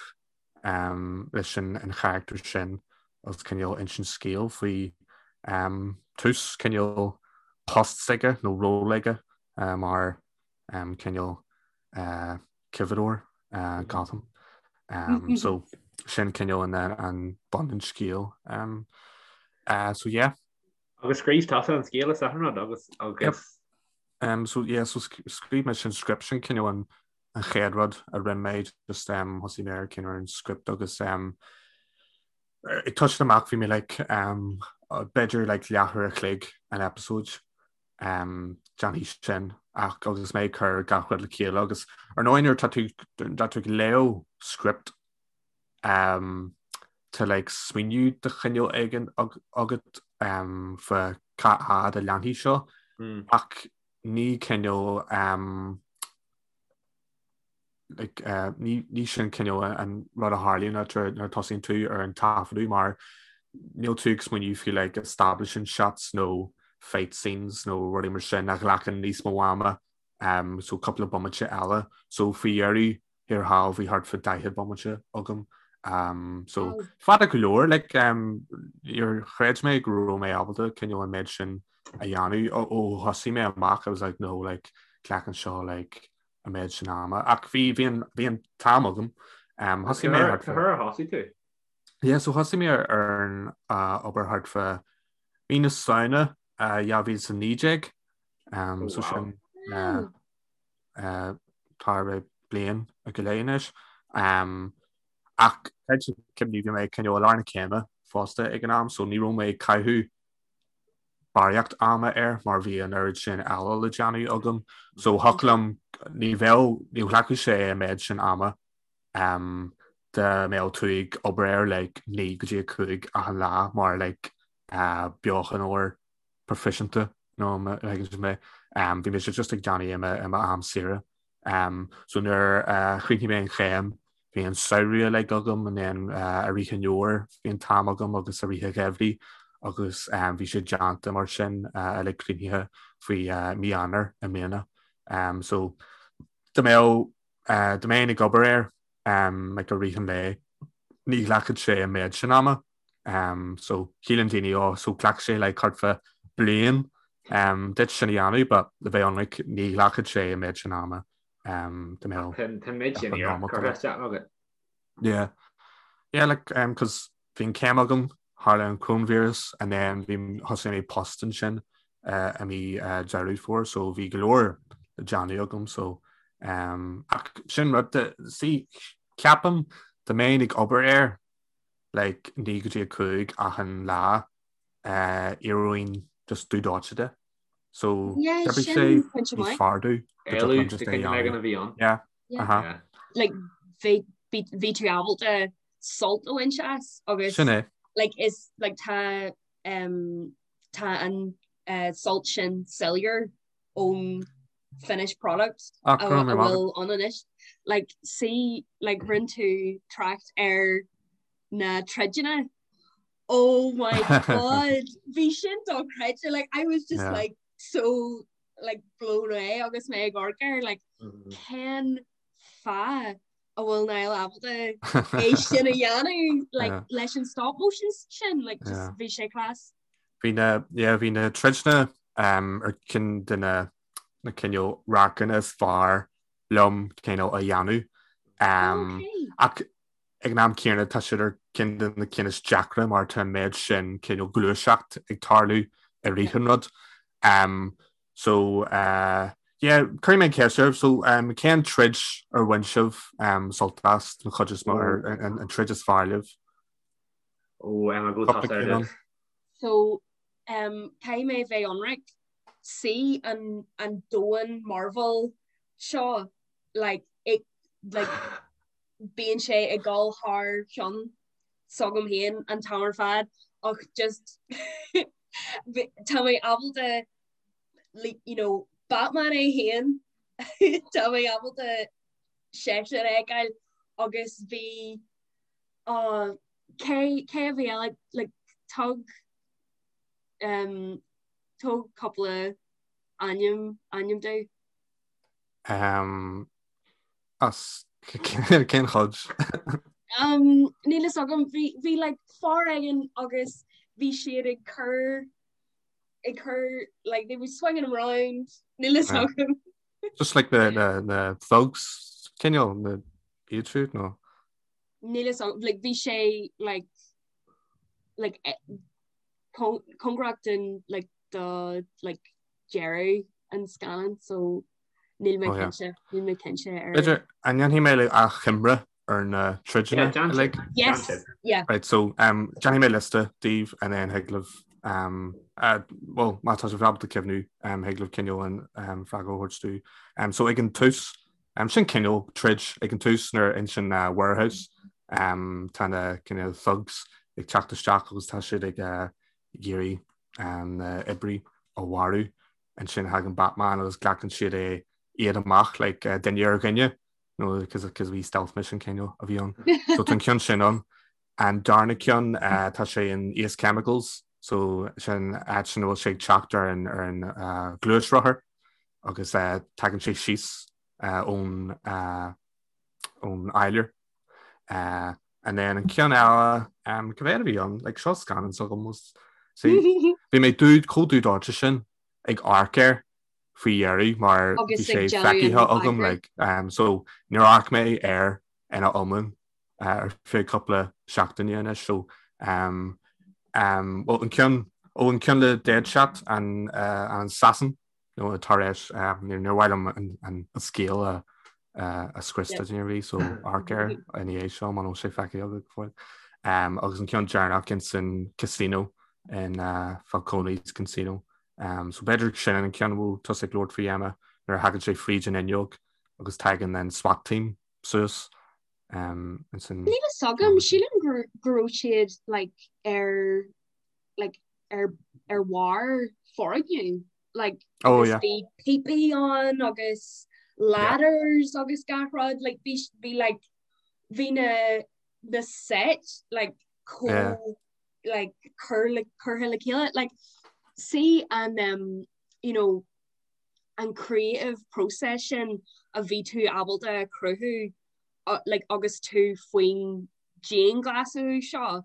[SPEAKER 2] um, leis an, an character sin agus cineál insint scéal faoi um, tús cineál post s'aige nó ról aige uh, mar um, cineál uh, cibeadóir uh, Gotham. Um, so sin cineál an, an bun an scéal. Um, uh, so yeah.
[SPEAKER 1] Agus scríobh tusa an scéal is achan rud agus
[SPEAKER 2] Yep.
[SPEAKER 1] agus
[SPEAKER 2] Um, so yeah, so scríobh mé sin script sin cineál an an chéad rud a rinne mé just um, thosaigh mé ar cineál an script agus um, ag toiseacht amach bhí mé like um, b'fhéidir like leathuair a chloig an episode um, déanfaidh sin ach agus mé ag cur gach rud le chéile agus ar ndóigh nuair tá tú tá tú ag léamh script um, tá like smaoineamh de chineál éigin agat um, fá cá fhad a leanfaidh seo
[SPEAKER 1] mm.
[SPEAKER 2] ach ní cineál um, like, uh, ní, ní sin cineál an rud a tharlaíonn nuair nuair a tosaíonn tú ar an taifeadadh mar níl tú ag smaoineamh faoi like, establishing shots nó fight scenes nó rudaí mar sin a ghlacann níos mó ama um, so cúpla bomaite eile so faoi dheireadh thiar thall bhí thart fá 40 bomaite agam um, so
[SPEAKER 3] Wow.
[SPEAKER 2] fada go leor like, um, níor chreid mé go raibh mé ábalta cineál an méid sin a dhéanamh ó ó thosaigh mé amach I was like no like glacann seo like a an méid sin ama ach bhí bhí an bhí an t-am agam. Um, thosaigh mé
[SPEAKER 1] thart Cá huair a thosaigh tú?
[SPEAKER 2] Yeah, so thosaigh mé ar ar an uh, obair thart fá mí na Samhna uh, 2019 um, oh, so wow. sin uh, uh, tá sé bliain go leith anois. Um, ach cuimhním bhí mé cineál i lár na céime fosta ag an am, so ní raibh mé ag caitheamh barraíocht ama air mar bhí an oiread sin eile le déanamh agam. So thiocfadh liom ní bheadh ní ghlacfadh sé an méid sin ama um, dá mbeadh tú ag obair air like, 9 go dtí 5 achan lá mar like, uh, beochanóir proifisiúnta nó má thuigeann sibh mé. Um, bhí mise just ag déanamh i m'am saoire. Um, so nuair a chríochnaigh mé an chéim, bhí an samhradh uilig agam and then uh, i rith an fhómhair bhí an t-am agam agus i rith an gheimhridh agus um, bhí sé déanta mar sin uh, uilig críochnaithe faoi uh, mí Eanáir i mbliana. Um, so dá mbeadh uh, dá mbeinn ag obair air um, like, i rith an lae ní ghlacfadh sé an méid sin ama. Um, so shíleann daoine ó so ghlac sé like thart fá bliain um, duit sin a dhéanamh, but le bheith ionraic ní ghlacfadh sé an méid sin ama um, dá mbeadh
[SPEAKER 1] Tá méid sin curtha isteach agat.
[SPEAKER 2] Yeah. Yeah, like, um, cos bhí an céim agam, tharla an coronavirus, and then bhí thosaigh mé post ansin uh, i mí uh, Deireadh Fómhair, so bhí go leor le déanamh agam, so um, ach sin rud see, ceapaim dá mbeinn ag obair air like 9 go dtí 5 achan lá éireoinn just dubh dóite de. So
[SPEAKER 3] Yeah,
[SPEAKER 2] d'oibrigh
[SPEAKER 3] sin
[SPEAKER 2] sé
[SPEAKER 3] pointe
[SPEAKER 2] níos
[SPEAKER 3] maith.
[SPEAKER 2] fearr domh go
[SPEAKER 1] Éalú
[SPEAKER 2] dtiocfadh liom just
[SPEAKER 1] de
[SPEAKER 2] é a
[SPEAKER 1] cinn ag
[SPEAKER 2] dhéanamh.
[SPEAKER 1] an a bhí ann.
[SPEAKER 2] Yeah,
[SPEAKER 3] Yeah.
[SPEAKER 2] uh-huh.
[SPEAKER 1] Yeah.
[SPEAKER 3] Like bhí bhí bhí tú ábalta sult a bhaint as agus
[SPEAKER 2] Sin é.
[SPEAKER 3] like is like tá um tá an uh, sult sin soiléir ón finished product
[SPEAKER 2] Ah,
[SPEAKER 3] a
[SPEAKER 2] go raibh
[SPEAKER 3] a
[SPEAKER 2] maith agat.
[SPEAKER 3] bhfuil ann anois. Like see like rinne tú trácht ar na troideanna. Oh my god bhí sin dochreidte like I was just
[SPEAKER 2] Yeah.
[SPEAKER 3] like so like blown away agus mé ag amharc air like
[SPEAKER 1] Mhm.
[SPEAKER 3] cén fáth a bhfuil Niall ábalta é sin a dhéanamh like
[SPEAKER 2] Yeah.
[SPEAKER 3] leis an stop motion sin like just
[SPEAKER 2] Yeah.
[SPEAKER 3] bhí sé class.
[SPEAKER 2] Bhí na yeah, bhí na troideanna um, ar ceann de na na cineál radharcanna is fearr liom cineál a dhéanamh. Um,
[SPEAKER 3] Okay.
[SPEAKER 2] ach ag an am céanna tá siad ar ceann de na cinn is deacra mar tá an méid sin cineál gluaiseacht ag tarlú i rith an rud. Um, so uh, yeah, cuirfidh mé an cheist oraibh, so um, cén troid ar bhain sibh um, sult as an chuid is mó ar an, an troid is fearr libh?
[SPEAKER 1] Ó, Emma, go
[SPEAKER 2] Cúpla
[SPEAKER 1] tá
[SPEAKER 2] cinn ann.
[SPEAKER 3] So um, caithfidh mé bheith ionraic see an, an domhan Marvel seo like, it, like, bíonn sé ag dul thar cheann s'agam féin an t-am ar fad ach just tá mé ábalta like, you know, Batman é féin tá mé ábalta seisean a fheiceáil agus bhí uh, cé cé a bhí eile like, tug um, tug cúpla ainm ainm domh.
[SPEAKER 2] Um, As cén chuid?
[SPEAKER 3] Um, níl fhios agam, bhí, bhí like fear éigin agus bhí siad ag cur, ag cur, like they were swinging him round, níl fhios agam.
[SPEAKER 2] Just like the, the, the thugs, cineál, na iad siúd, nó?
[SPEAKER 3] Níl fhios agam, like bhí sé like, like eh, cóngarach don, like, do, like deireadh an scannáin, so Níl mé cinnte, níl mé cinnte ar.
[SPEAKER 2] B'fhéidir, an ndéanfaidh mé like achoimre ar na troideanna uilig?
[SPEAKER 3] Yes, yeah.
[SPEAKER 2] Right, so um, déanfaidh mé liosta daoibh and then thig libh um, uh, well, má tá sibh ábalta cuimhniú um, thig libh cineál an um, freagra a thabhairt domh. Um, so ag an tús, um, sin cineál troid ag an tús nuair in san uh, warehouse um, tá na cineál thugs ag teacht isteach agus tá siad ag uh, iarraidh an uh, oibrí a mharú. Ansin thagann Batman agus glacann siad é iad amach like duine ar dhuine nó cos cos bhí stealth mission cineál a bhí ann. So tá an ceann sin ann. An darna ceann tá sé in Ace Chemicals so sin áit sin a bhfuil sé ag teacht ar an ar an gluaisrothar agus tagann sé síos ón ón áiléar. And then an ceann eile cad é a bhí ann like seo scannán s'agam was see bhí mé dubh chomh dubh dóite sin ag amharc air. faoi dheireadh mar bhí sé feicthe agam like um, so níor amharc mé air ina iomlán uh, ar feadh cúpla seachtaine anois so um, um, well, an ceann ó an ceann le Deadshot an, uh, an Assassin nó tar éis um, níor mhaith liom an, an, an scéal a uh, a scrios duine ar bith so amharc air ina dhiaidh seo muna bhfuil sé feicthe agat go fóill. Um, agus an ceann deireanach in san casino in uh, Falcone's Casino Um, so b'fhéidir sin an ceann a bhfuil tusa ag labhairt faoi Emma nuair a thagann sé fríd an fhuinneog agus tagann an SWAT team suas. Um,
[SPEAKER 3] ansin Níl a fhios agam, sílim go go raibh siad like, ar like, ar ar bharr foirgneamh like,
[SPEAKER 2] Oh, agus yeah.
[SPEAKER 3] bhí píopaí ann agus ladders agus gach rud like, bhí bhí like, bhí na na set like, chomh Yeah. like cur le curtha le chéile like see an um, you know an creative process sin a bhí tú ábalta a chruthú uh, like agus tú faoin dianghlasáil seo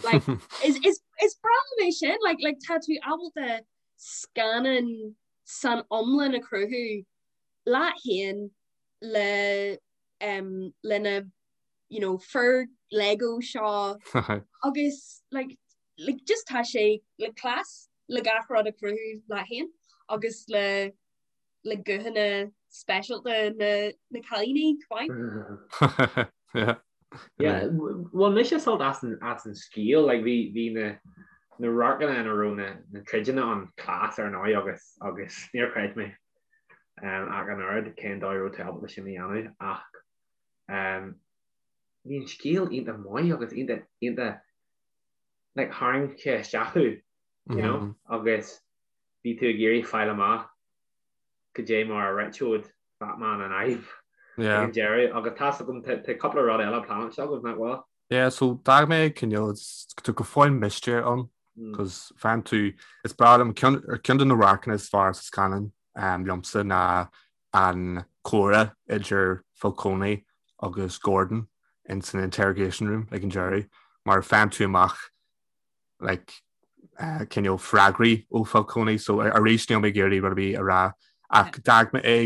[SPEAKER 3] like is is is breá liom é sin like like tá tú ábalta scannán san iomlán a chruthú leat féin le um, lena you know, fir Lego seo agus like, like, just tá sé le class le gach rud a chruthú leat féin agus le le guthanna speisialta na, na cailíní
[SPEAKER 1] chomh maith. Yeah. Yeah, bhain mise sult as an, as an scéal, like, bhí, bhí na, na radharcanna ina raibh na, na troideanna ann class ar ndóigh agus, agus níor chreid mé um, ach an oiread cén dóigh a raibh tú ábalta sin a dhéanamh ach Um, bhí an scéal iontach maith agus iontach iontach like, tharraing sé isteach thú, you know, mm -hmm. agus bhí tú ag iarraidh fáil amach cad é mar a réiteodh Batman an fhadhb yeah. ag an deireadh agus tá a fhios agam tá cúpla rud eile pleanáilte agaibh nach bhfuil?
[SPEAKER 2] Yeah, so d'fhág mé cineál tá go fóill mistéir ann, cos faigheann tú is breá liom ceann de na radharcanna is fearr sa scannán um, liomsa ná an comhrá idir Falcone agus Gordon in san interrogation room ag an deireadh mar faigheann tú amach like, uh, cineál freagraí ó Falcone so arís níl mé ag iarraidh rud ar bith a rá ach d'fhág mé é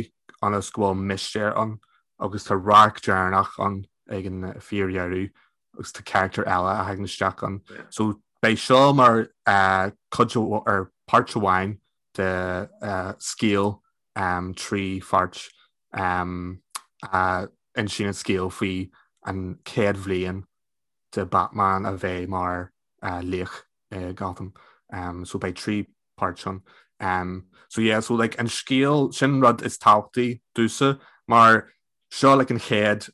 [SPEAKER 2] ionas go bhfuil mistéir ann agus tá radharc deireanach ann ag an fíordheireadh agus tá character eile a thagann isteach ann. So beidh seo mar uh, cuid ar páirt amháin de uh, scéal 3 pháirt a insíonn an scéal faoi an chéad bhliain de Batman a bheith mar laoch i Gotham. So beidh 3 páirt ann. So yeah, so like an scéal, sin rud is tábhachtaí domhsa mar seo like an chéad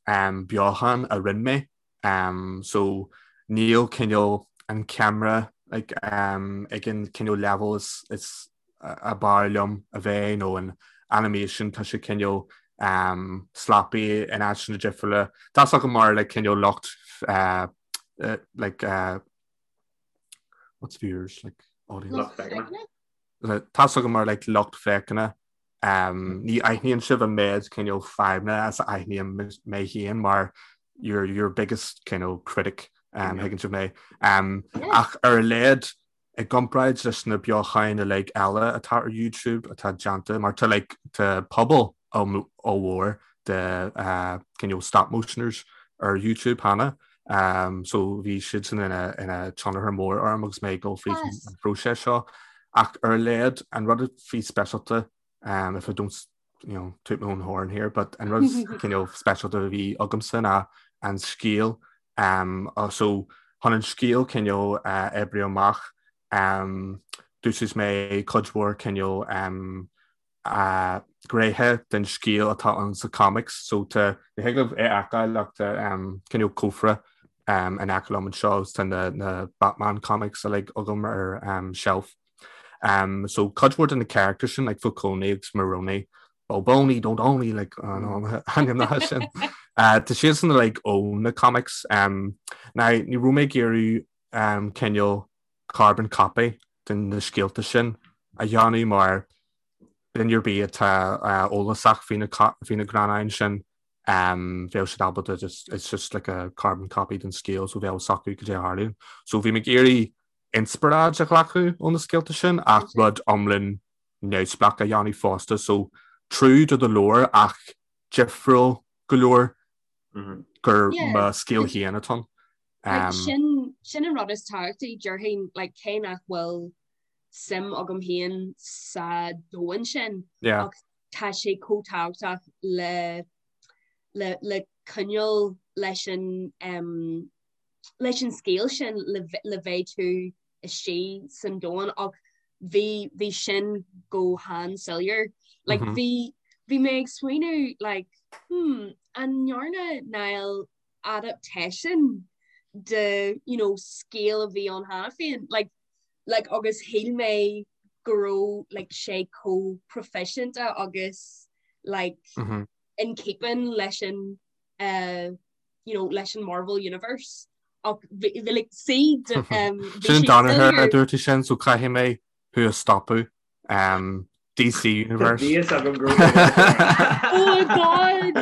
[SPEAKER 2] beochan a rinne mé Um, so níl cineál an ceamara like, um, ag an cineál level is, is ab fhearr liom a bheith nó an animation tá sé cineál um, sloppy in áiteanna difriúla. Tá a fhios agam mar like, cineál lucht uh, uh, like, uh, what's viewers like audience?
[SPEAKER 1] Lucht féachana.
[SPEAKER 2] Tá a fhios agam mar like, lucht féachana Ní aithníonn sibh an méid cineál fadhbanna is a aithním mé féin mar your, your biggest cineál critic um, thuigeann sibh mé. Um, ach ar a laghad i gcomparáid leis na beocháin uilig eile atá ar YouTube atá déanta mar tá like, tá pobal ollmhór de uh, cineál stop motioners ar YouTube cheana. Um, so bhí siad sin ina, ina tionchar mór orm agus mé ag dul fríd an phróiseas seo. Ach ar a laghad an rud a bhí speisialta um, if I don't you know, toot my own horn here, but an rud cineál speisialta a bhí agamsa ná an scéal. Um, uh, so chun an scéal cineál uh, oibriú amach um, d'úsáid mé cuid mhór cineál um, gnéithe den scéal atá ann sa comics so tá ní thig libh é a fheiceáil ach tá cineál cófra in aice liom anseo agus tá na na Batman comics uilig agam ar shelf. Um, so cuid mhór de na characters sin like Falcone agus Maroni Boboni don't only like ainmneacha sin. Uh, tá siadsan like ó na comics. Um, now ní raibh mé ag iarraidh um, cineál carbon copy den na scéalta sin a dhéanamh mar duine ar bith atá eolasach faoi na greannáin sin bheadh siad ábalta just it's just like a carbon copy den scéal so bheadh a fhios acu cad é a tharlaíonn. So bhí mé ag iarraidh inspioráid a ghlacadh ó na scéalta sin ach rud iomlán. neamhspleách a dhéanamh fosta so true to the lore ach difriúil go leor gur mo scéal féin atá ann.
[SPEAKER 3] Like, sin sin an rud is tábhachtaí déarfainn like, cé nach bhfuil suim agam féin sa domhan sin
[SPEAKER 2] Yeah.
[SPEAKER 3] ach tá sé chomh tábhachtach le le le coinneáil leis an um, leis an scéal sin le le bheith tú istigh san domhan ach bhí bhí sin go han-soiléir. Like, mm -hmm. bhí bhí mé ag smaoineamh like, hmm, an ndearna Niall adaptation de you know, scéal a bhí ann cheana féin like, like, agus shíl mé go raibh like, sé chomh proifisiúnta agus like, mm -hmm. in keeping leis an uh, you know, leis an Marvel Universe ach bhí like, see
[SPEAKER 2] um, Sin Danaher a dúirt sin so caithfidh mé thú a stopadh um, DC Universe.
[SPEAKER 1] Bhí fhios agam go
[SPEAKER 3] Oh God!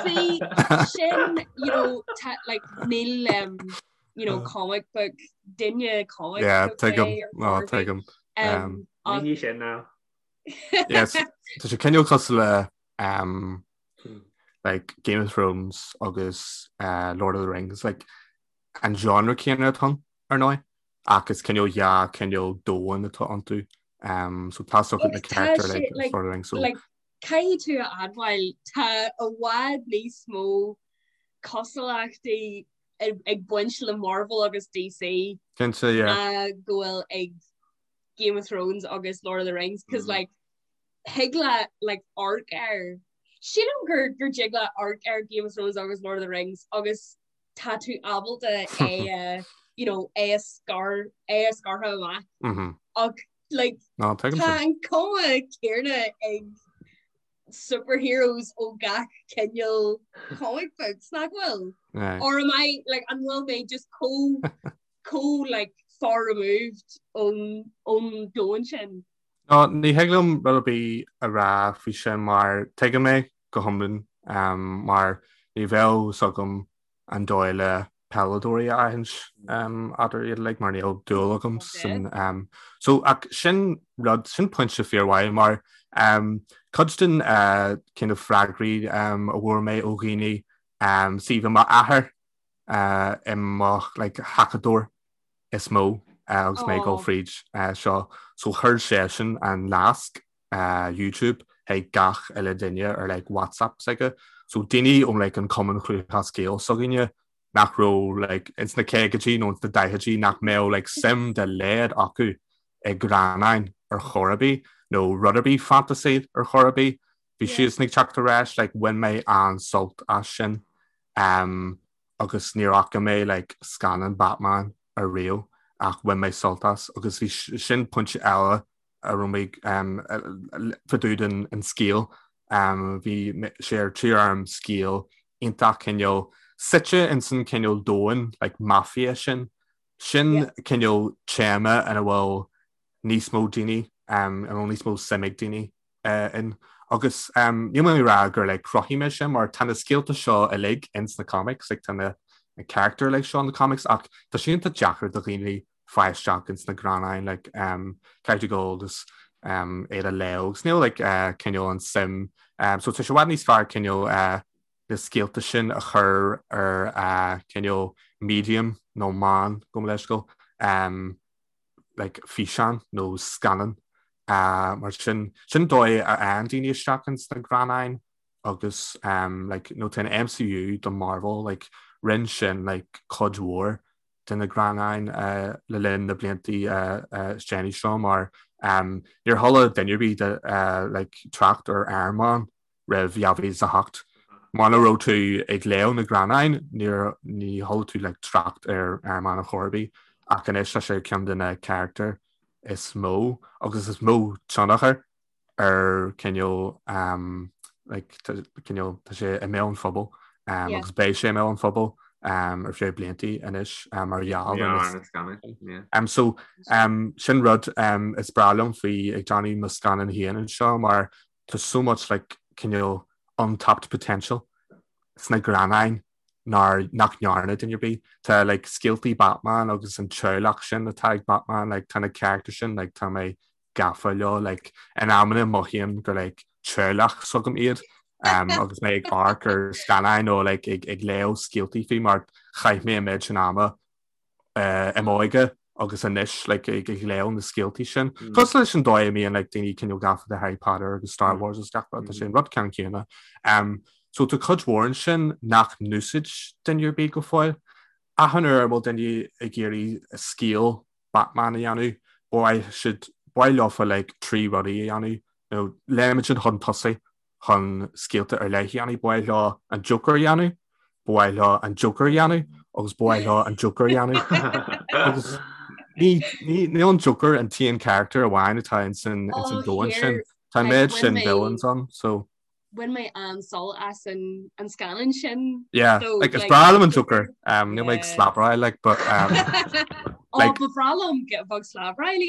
[SPEAKER 3] See, sin, you know, ta, like, níl, um, you know, comic book, duine comic
[SPEAKER 2] Yeah,
[SPEAKER 3] book
[SPEAKER 2] tuigim.
[SPEAKER 3] é ar
[SPEAKER 2] No,
[SPEAKER 3] chor ar bith.
[SPEAKER 2] tuigim.
[SPEAKER 3] Um, ach
[SPEAKER 1] Ní sin now.
[SPEAKER 2] Yes, tá sé cineál cosúil le um, like Game of Thrones agus uh, Lord of the Rings, like an genre céanna atá ann, ar ndóigh, ach is cineál dhá cineál domhan atá iontu. Um, so tá na
[SPEAKER 3] Agus tá
[SPEAKER 2] character
[SPEAKER 3] sé,
[SPEAKER 2] like,
[SPEAKER 3] like,
[SPEAKER 2] Lord of the Rings, so
[SPEAKER 3] like, caithfidh tú a admháil tá i bhfad níos mó cosúlachtaí ag ag baint le Marvel agus DC
[SPEAKER 2] cinnte, yeah.
[SPEAKER 3] ná go bhfuil ag Game of Thrones agus Lord of the Rings, cos
[SPEAKER 1] Mm.
[SPEAKER 3] like thig leat like amharc air. Sílim gur gur dtig leat amharc ar Game of Thrones agus Lord of the Rings agus tá tú ábalta é a you know é a scar é a scartha amach
[SPEAKER 2] Mm -hmm.
[SPEAKER 3] ach like
[SPEAKER 2] No, tuigim
[SPEAKER 3] tá
[SPEAKER 2] sin.
[SPEAKER 3] an cuma céanna ag superheroes ó gach cineál comic books nach bhfuil?
[SPEAKER 2] Yeah.
[SPEAKER 3] Or am I like an bhfuil mé just chomh chomh like far removed ón ón domhan sin?
[SPEAKER 2] No, ní thig liom rud ar bith a rá faoi sin mar tuigim é go hiomlán mar ní bheadh fhios agam an dóigh le peileadóirí a aithint eadar iad uilig mar níl dúil agam san so ach sin rud sin pointe fíormhaith mar cuid den kind of freagraí a bhfuair mé ó dhaoine see bhí m'athair i mo like thacadóir is mó agus mé ag dul fríd seo. So chuir seisean an nasc YouTube chuig gach uile duine ar like WhatsApp s'aige. So daoine ón like an Cumann Lúthchleas Gael s'againne nach raibh like ins na caogaidí nó ins na daichidí nach mbeadh like suim dá laghad acu i greannáin ar chor ar bith nó rud ar bith fantasy ar chor ar bith. Bhí siadsan ag teacht ar ais like bhain mé an-sult as sin. Um, agus níor fhaca mé like scannán Batman ariamh ach bhain mé sult as agus bhí sin pointe eile a raibh mé fá dtaobh den an scéal bhí sé ar tí orm scéal iontach cineál suite ins an cineál domhan like mafia sin sin cineál téama ina bhfuil níos mó daoine ina bhfuil níos mó suim ag daoine in. Agus níl mé ag rá gur like chruthaigh mé sin mar tá na scéalta seo uilig ins na comics, like tá na character uilig seo in the comics ach tá sé iontach deacair do dhaoine fáil isteach ins na greannáin like caithfidh tú dul agus iad a léamh agus níl like cineál an suim so tá sé i bhfad níos fearr cineál na scéalta sin a chur ar cineál medium nó meán gabh mo leithscéal like físeán nó scannán mar sin sin dóigh a fhaigheann daoine isteach ins na greannáin agus um, like, nó tá an MCU do Marvel like, rinne sin like, cuid mhór de na greannáin uh, le linn na bliantaí uh, uh, is déanaí seo mar um, níor chuala duine ar bith de, uh, like, trácht ar Iron Man roimh 2008. Muna raibh tú ag léamh na greannáin, níor ní chuala tú like trácht ar Iron Man ar chor ar bith, ach anois tá sé ceann de na carachtair is mó agus is mó tionchar ar cineál um, like, cineál tá sé i mbéal an phobail um, yeah. agus beidh sé i mbéal an phobail um, ar feadh bliantaí anois um, mar gheall ar na
[SPEAKER 1] scannáin. Yeah.
[SPEAKER 2] Um, so um, sin rud um, is breá liom faoi ag déanamh mo scannán féin anseo mar Tá so much like cineál untapped potential sna greannáin nár nach ndearna duine ar bith. Tá like scéaltaí Batman agus an teaghlach sin atá ag Batman like tá na characters sin like tá mé gafa leo like in amanna mothaím gur like teaghlach s'agam iad um, agus mé ag amharc ar scannáin nó like, ag, ag léamh scéaltaí faoi mar chaith mé an méid sin ama uh, i m'óige agus anois like, ag, ag léamh na scéaltaí sin. Mm. Cosúil leis an dóigh a mbíonn like, daoine cineál gafa de Harry Potter agus Star mm. Wars agus gach rud, tá sé an rud ceann céanna. Um, so tá cuid mhór ansin nach n-úsáid duine ar bith go fóill. Achan uair a bhfuil duine ag iarraidh scéal Batman a dhéanamh, ba mhaith siad, ba mhaith leofa like 3 rudaí a dhéanamh, nó léimeann siad chun tosaigh chun scéalta ar leith a dhéanamh, ba mhaith leo an Joker a dhéanamh, ba mhaith leo an Joker a dhéanamh agus ba mhaith leo an Joker a dhéanamh. Agus ní, ní, níl an Joker an t-aon character amháin atá ins an, ins an domhan sin. Tá an méid sin villains ann, so.
[SPEAKER 3] Bhain mé an-sult as an an scannán sin.
[SPEAKER 2] Yeah, so, like, is breá liom an Joker. Um, níl mé ag slabráil, like, but um,
[SPEAKER 3] like, ba bhreá liom bheith slabráil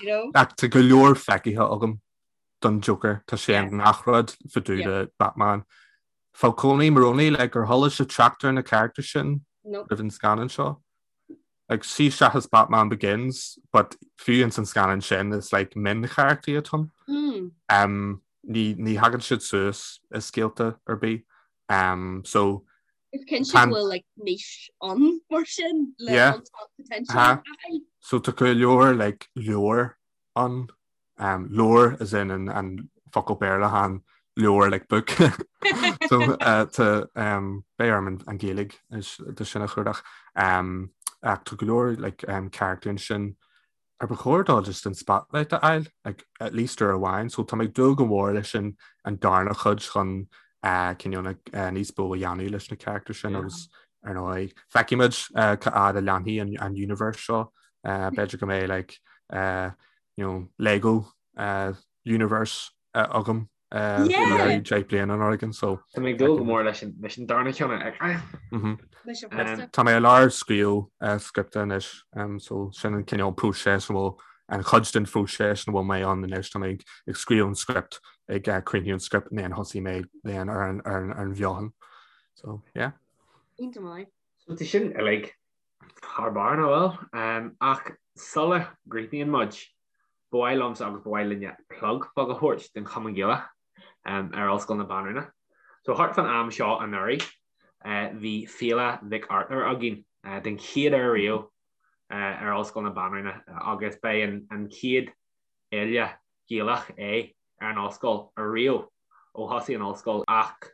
[SPEAKER 2] you know? Ach tá go leor feicthe agam don Joker tá sé i ngach rud fá dtaobh de Batman. Falcone Maroni like, ar chuala sibh trácht ar na characters sin roimh an scannán seo. Like, sí seachas Batman Begins, but fiú ins an scannán sin is like mioncharachtaí atá ann. Mm. Um, ní, ní thagann siad suas i scéalta ar bith. Um, so
[SPEAKER 3] Is cinnte go bhfuil like niche ann mar sin le yeah. potential. Ha.
[SPEAKER 2] So tá go leor like leabhar ann Um, leabhar as in an, an focal Béarla chan leabhar like book. so uh, tá um, beidh orm an, an Ghaeilge de sin a chuardach. Um, ach tá go leor like, um, character ansin ar ba chóir dó just an spotlight a fháil, like, at least uair amháin, so tá mé ag dúil go mór leis an, an darna chuid chun uh, cineál uh, níos mó a dhéanamh leis na character sin agus ar ndóigh feicfimid uh, cá fhad a leanfaidh an, an universe seo uh, b'fhéidir go mbeidh like, uh, you know, Lego uh, universe uh, agam uh, yeah. 10 bliana an organ so
[SPEAKER 1] Tá mé ag dúil go mór leis an leis an darna ceann a fheiceáil.
[SPEAKER 2] Mm -hmm. Tá mé i lár scríobh uh, scripta anois um, so sin an cineál próiseas a bhfuil an chuid den phróiseas ina bhfuil mé ann anois tá mé ag, ag scríobh an script ag uh, críochnú an script and then thosaigh mé then ar an, ar an, ar an bheochan. So yeah.
[SPEAKER 3] Iontach maith.
[SPEAKER 1] So tá sin uilig Thar barr, nach bhfuil? Ach sula gcríochnaíonn muid, ba mhaith liomsa agus ba mhaith linne plug beag a thabhairt don Chumann Gaelach ar Ollscoil na Banríona. So thart fán am seo anuraidh, bhí Féile Mhic Artúir againn den chéad uair riamh ar Ollscoil na Banríona agus b'é an chéad fhéile Ghaelach é ar an ollscoil ariamh ó thosaigh an ollscoil ach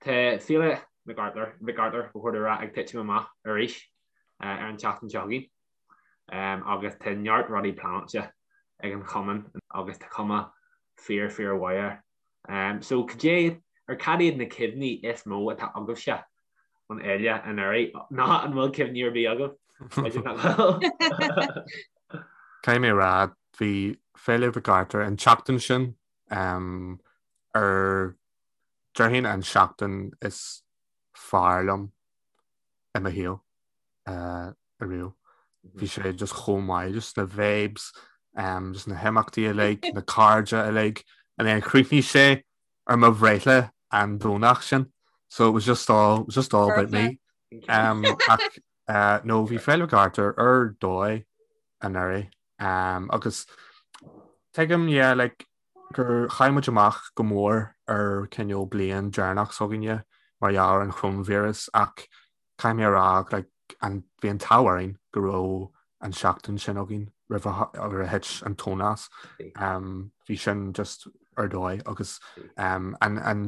[SPEAKER 1] Tá Féile Mhic Artúir, Mhic Artúir, ba chóir domh a rá, ag titim amach arís ar an tseachtain seo chugainn agus tá neart rudaí pleanáilte ag an chumann agus tá cuma fíor fíor mhaith air. So cad é, or cad iad na cuimhní is mó atá agaibhse ón fhéile anuraidh? Nó an bhfuil cuimhní ar bith agaibh? B'fhéidir nach bhfuil.
[SPEAKER 2] Caithfidh mé a rá, bhí Féile Mhic Artúir an tseachtain sin ar Déarfainn an seachtain is fearr liom i mo shaol ariamh. Bhí sé just chomh maith, just na vibes, just na himeachtaí uilig, na cairde uilig, and then chríochnaigh sé ar mo bhreithlá an Domhnach sin, so it was just all, it was just all about me. Um, ach uh, no, bhí Féile Mhic Artúir ar dóigh anuraidh. Um, agus tuigim, yeah, like, gur chaill muid amach go mór ar cineál bliain deireanach s'againne mar gheall ar an choróinvíreas ach caithfidh mé a rá like an bhí an t-ádh orainn go raibh an seachtain sin againn roimh a roimh a thit an tóin as. Um, bhí sin just ar dóigh agus um, an, an,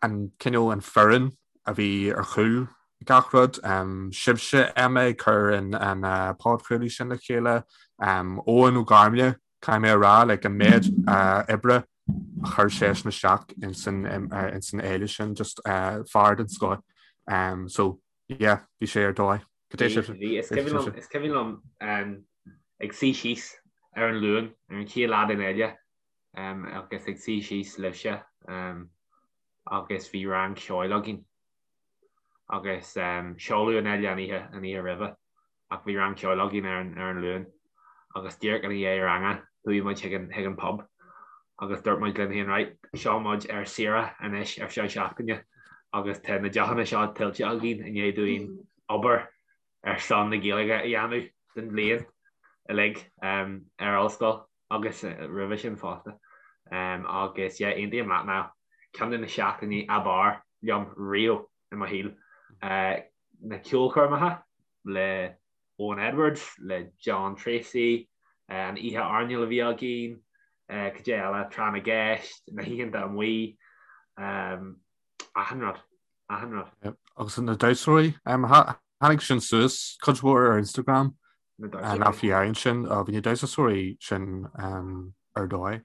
[SPEAKER 2] an cineál an foireann a bhí ar chúl gach rud, um, sibhse Emma ag cur an, an uh, podchraoladh sin le chéile, um, Eoin Ó Gairmle Caithfidh mé a rá, like, an méid oibre a chuir seisean isteach ins an ins an fhéile sin, just fear den scoth. Um, so, yeah, bhí sé ar dóigh.
[SPEAKER 1] Cad é sibh? Bhí, is cuimhin liom, is cuimhin liom ag suí síos ar an Luan, ar an chéad lá den fhéile, agus ag suí síos libhse, agus bhí rang ceoil againn. Agus seoladh an fhéile an oíche, an oíche roimhe. ach bhí rang ceoil againn ar an ar an Luan agus díreach ina dhiaidh ranga chuaigh muid chuig an chuig an pub agus dúirt muid linn féin right seo muid ar saoire anois ar feadh seachtaine agus tá na deochanna seo tuillte againn i ndiaidh dúinn obair ar son na Gaeilge a dhéanamh don bhliain. uilig ar ollscoil agus roimhe sin fosta. Agus yeah, aontaím leat Niall, ceann de na seachtainí ab fhearr liom riamh i mo shaol. Na ceolchoirmeacha le Owen Edwards, le John Treacy, an oíche airneáil a bhí againn, cad é eile, tráth na gceist, na hoícheanta amuigh, achan rud, achan rud.
[SPEAKER 2] Agus na damhsóirí, tháinig sin suas cuid mhór ar Instagram, nach bhí ar sin, bhí na damhsóirí sin ar dóigh.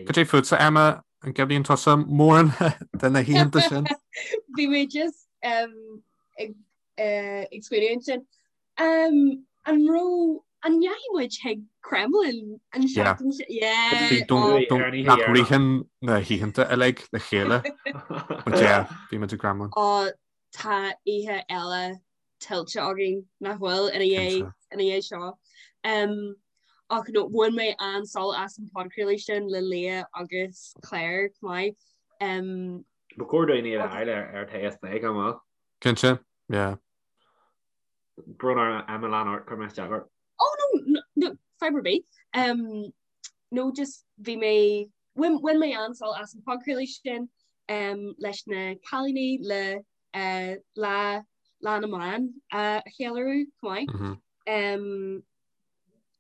[SPEAKER 2] Cad é fútsa, Emma, an gcuimhníonn tusa mórán de na hoícheanta sin?
[SPEAKER 3] Bhí mé just ag ag smaoineamh ansin. An raibh an ndeachaigh muid chuig Kremlin an seachtain sin? Yeah.
[SPEAKER 2] Bhí nach ritheann na hoícheanta uilig le chéile. But yeah, bhí muid i Kremlin.
[SPEAKER 3] Ó tá oíche eile tuillte againn nach bhfuil ina dhiaidh ina dhiaidh seo. Um, ach no, bhain mé an-sult as an podchraoladh sin le Leah agus Claire chomh maith. Um,
[SPEAKER 1] Ba chóir dúinn iad a fháil ar ar Tae is Plé gan mhoill.
[SPEAKER 2] Cinnte, yeah.
[SPEAKER 1] Brón orm Emma lean ort, chuir mé isteach ort.
[SPEAKER 3] Oh no, no, no, fadhb ar bith. Um, no, just bhí mé, bhain, bhain mé an-sult as an podchraoladh sin um, leis na cailíní le uh, lá, lá na mban uh, a cheiliúradh chomh maith. Mm -hmm. Um,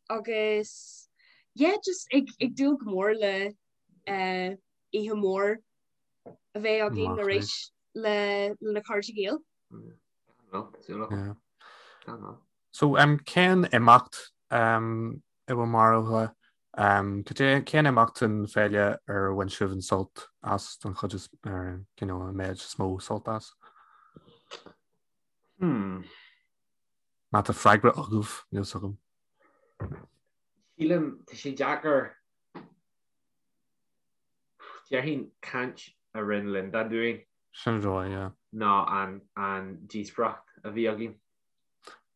[SPEAKER 3] agus yeah, just ag, ag dúil go mór le uh, oíche mhór a bheith againn arís le na cairde Gael.
[SPEAKER 2] So um, cén imeacht um, i bhur mbarúil um, cén imeacht den féile ar bhain sibh an sult as don chuid is ar you know, an méid is mó sult as?
[SPEAKER 1] Hmm.
[SPEAKER 2] Má tá freagra agaibh níl a fhios agam.
[SPEAKER 1] Sílim tá sé deacair Déarfainn caint a rinne Linda dúinn.
[SPEAKER 2] Sin an dóigh, yeah.
[SPEAKER 1] Ná an an díospóireacht a bhí againn.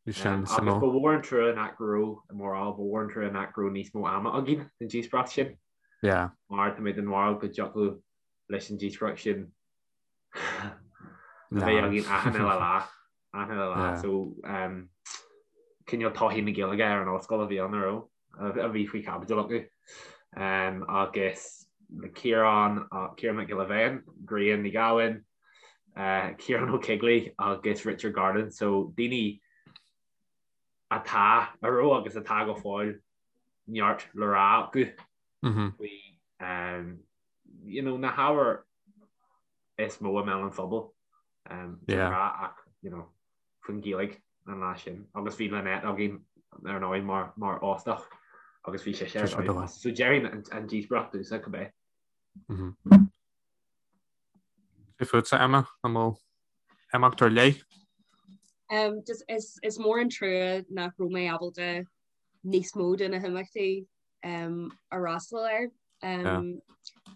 [SPEAKER 2] Bhí sin suimiúil.
[SPEAKER 1] Agus ba mhór an trua nach raibh, i mo bharúil, ba mhór an trua nach raibh níos mó ama againn don díospóireacht sin.
[SPEAKER 2] Yeah.
[SPEAKER 1] Mar tá mé den bharúil go dtiocfadh leis an díospóireacht sin a bheith againn achan uile lá. Achan uile lá. So, cineál todhchaí na Gaeilge ar an ollscoil a bhí ann, a raibh? a bhí faoi chaibidil acu agus Ciarán, Ciarán Mac Giolla Bhéin, Grian Ní Ghabhann, Ciarán Ó Coigligh agus Richard Garland, so daoine atá, a raibh agus atá go fóill neart le rá acu faoi you know, na hábhair is mó i mbéal an phobail de ghnáth ach you know, faoin Ghaeilge an lá sin agus bhí Lynette againn ar ndóigh mar mar óstach agus bhí sé ar dóigh. So déarfainn an, an díospóireacht domhsa cibé.
[SPEAKER 2] Cad fútsa Emma an bhfuil imeacht ar leith?
[SPEAKER 3] Um, just is, is mór an trua nach raibh mé ábalta níos mó de na himeachtaí um, a fhreastal air. Um, yeah.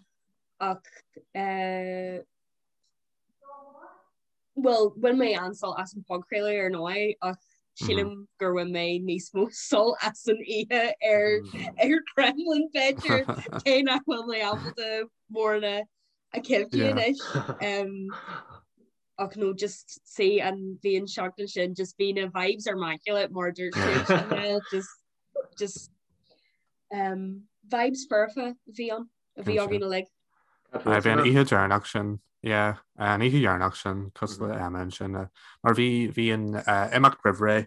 [SPEAKER 3] Ach uh, Bhuel, bhain mé an-sult as an podchraoladh ar ndóigh ach sílim gur bhain mé níos mó sult as an oíche ar ar Kremlin b'fhéidir cé nach bhfuil mé ábalta mórán a chuimhniú anois. Ach no just see an bhí an seachtain sin just bhí na vibes ar immaculate mar dúirt sé just just um, vibes foirfe a bhí ann. a bhí againn uilig.
[SPEAKER 2] Bhí an oíche dheireanach sin, yeah, an oíche dheireanach sin, cosúil le Emma ansin, mar bhí bhí an imeacht roimh ré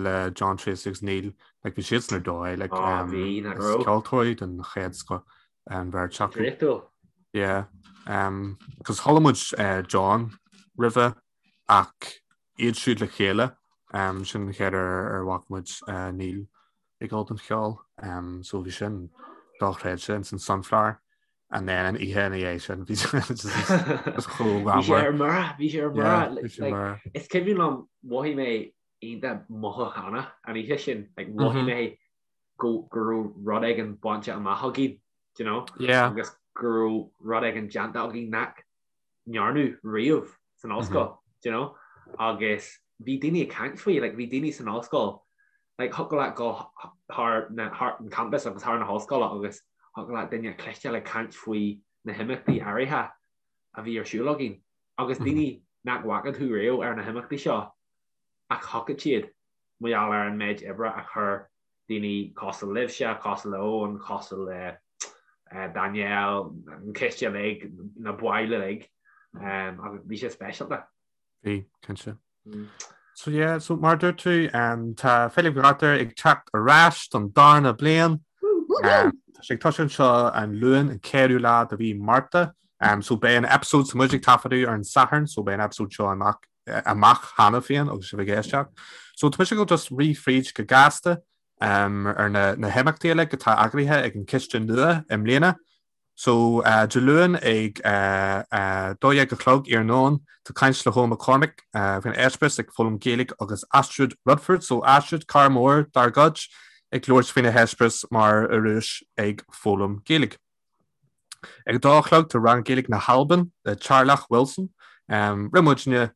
[SPEAKER 2] le John Treacy agus Neil, like bhí siadsan ar dóigh, like um,
[SPEAKER 1] bhí, nach raibh.
[SPEAKER 2] ceoltóirí den chéad scoth an bheirt acu.
[SPEAKER 1] Draíochtúil.
[SPEAKER 2] Yeah, um, cos chuala muid uh, John roimhe ach iad siúd le chéile, um, sin an chéad uair ar bhfaca muid uh, Neil ag dul don cheol so bhí sin dochreidte ins an Sunflower and then an oíche ina dhiaidh sin bhí
[SPEAKER 1] just chomh Bhí sé ar mire, bhí sé ar mire. Is cuimhin liom mhothaigh mé iontach mothúchánach an oíche sin, like mhothaigh mé go go raibh rud éigin bainte amach againn, do you know?
[SPEAKER 2] Yeah.
[SPEAKER 1] Agus go raibh rud éigin déanta againn nach ndearnadh riamh san ollscoil, do you know? Agus bhí daoine ag caint faoi, like bhí daoine san ollscoil, like thiocfadh leat dul thar na, thar an campus agus thar na hollscoile agus thiocfadh leat duine a chloisteáil ag caint faoi na himeachtaí áirithe a bhí ar siúl againn. Agus daoine nach bhfaca tú riamh ar na himeachtaí seo ach thiocfadh siad mar gheall ar an méid oibre a chuir. Daoine cosúil libhse, cosúil le Eoin, cosúil le Danielle, an coiste uilig, na baill uilig, agus bhí sé speisialta.
[SPEAKER 2] Bhí, cinnte. So yeah, so mar dúirt tú, tá Féile Mhic Artúir ag teacht ar ais don darna bliain. Tá sé ag tosú anseo an Luan, an 4ú lá de mhí Márta. So beidh an episode, so muid ag taifeadadh ar an Satharn, so beidh an episode seo amach amach cheana féin agus sibh ag éisteacht. So tá mise ag dul just rith fríd go gasta ar na na himeachtaí uilig atá eagraithe ag an Ciste nua i mbliana. So Dé Luain ag 12 a chlog iarnóin tá caint le hEoin McCormack faoin eispéireas ag foghlaim Gaeilge agus Astrid Rutherford, so Astrid, cara mór dár gcuid, ag labhairt faoina heispéireas mar Ioruais ag foghlaim Gaeilge. Ag a dó a chlog tá rang Gaeilge na hAlban le Teàrlach Wilson. Rinne muidne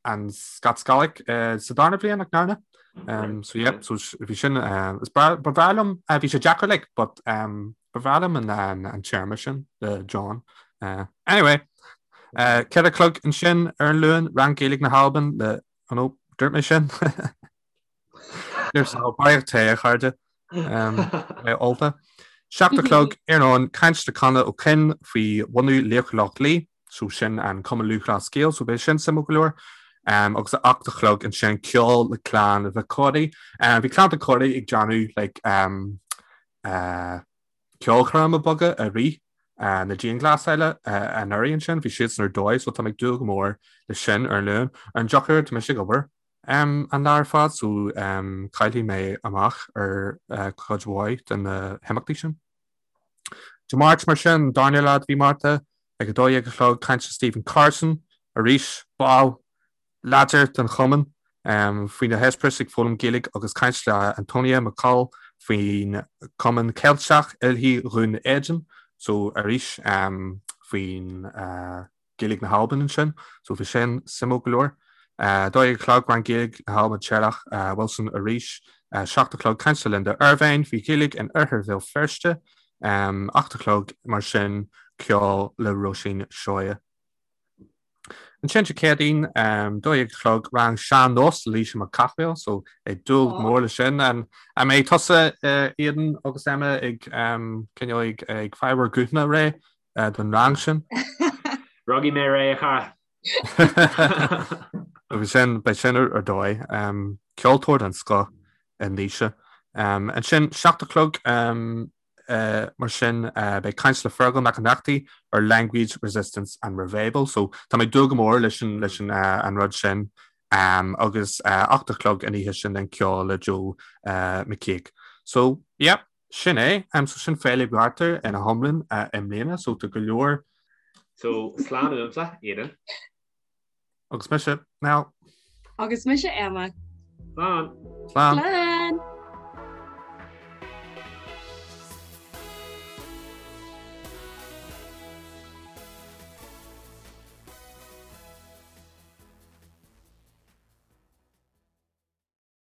[SPEAKER 2] an Scots Gaelic sa darna bhliain nach ndearna? So yeah, so bhí sin is ba bhreá liom bhí sé deacair like but ba bhreá liom an téarma sin le John. Anyway, 4 a chlog ansin ar an Luan rang Gaeilge na hAlban le oh no, dúirt mé sin. Barraíocht tae, a chairde. Mé ólta. 7 a chlog iarnóin caint le Conor Ó Coinn faoi bhunú Laochra Loch Lao, so sin an Cumann Lúthchleas Gael, so beidh sin suimiúil go leor. Agus a 8 a chlog ansin ceol le Clann Mhic Corraidh. Bhí Clann Mhic Corraidh ag déanamh like ceolchoirme beaga i rith na dianghlasála anuraidh ansin, bhí siadsan ar dóigh, so tá mé ag dúil go mór leis sin ar an Luan. Ar an drochuair tá mise ag obair an lá ar fad so caillfidh mé amach ar chuid mhaith de na himeachtaí sin. Dé Máirt mar sin, darna lá de mhí Márta, ag 12 a chlog, caint le Stephen Carson, arís ball láidir den chumann, faoina heispéireas ag foghlaim Gaeilge agus caint le Antonia McCall faoin Cumann Ceilteach Oilthigh Dhún Éideann, so arís faoin Gaeilge na hAlban ansin, so bhí sin suimiúil go leor. 12 a chlog, rang Gaeilge na hAlban Teàrlach Wilson arís. 7 a chlog, caint le Linda Ervine faoi Ghaeilge in Oirthear Bhéal Feirste. 8 a chlog, mar sin, ceol le Róisín Seoighe. Ansin Dé Céadaoin, 12 a chlog, rang sean-nós le Laoise Mac Cathmhaoil, so ag dúil go mór le sin. An mbeidh tusa, Aidan agus Emma ag cineál ag fáil bhur guthanna réidh don rang sin.
[SPEAKER 1] Rachaidh mé réidh, a chara.
[SPEAKER 2] Agus sin, beidh sin ar dóigh. Ceoltóir den scoth í Naoise. Ansin, 7 a chlog mar sin, beidh caint le Fergal Mac Ionnrachtaigh ar Language Resistance and Revival. So tá mé ag dúil go mór leis an an rud sin. Agus 8 a chlog an oíche sin den ceol le Joe McKeag. So, yeah. Sin é. So sin Féile Mhic Artúir ina hiomlán i mbliana, so tá go leor.
[SPEAKER 1] So slán uaimse, Aidan.
[SPEAKER 2] Agus mise, Niall.
[SPEAKER 3] Agus mise, Emma.
[SPEAKER 1] Slán.
[SPEAKER 2] Slán.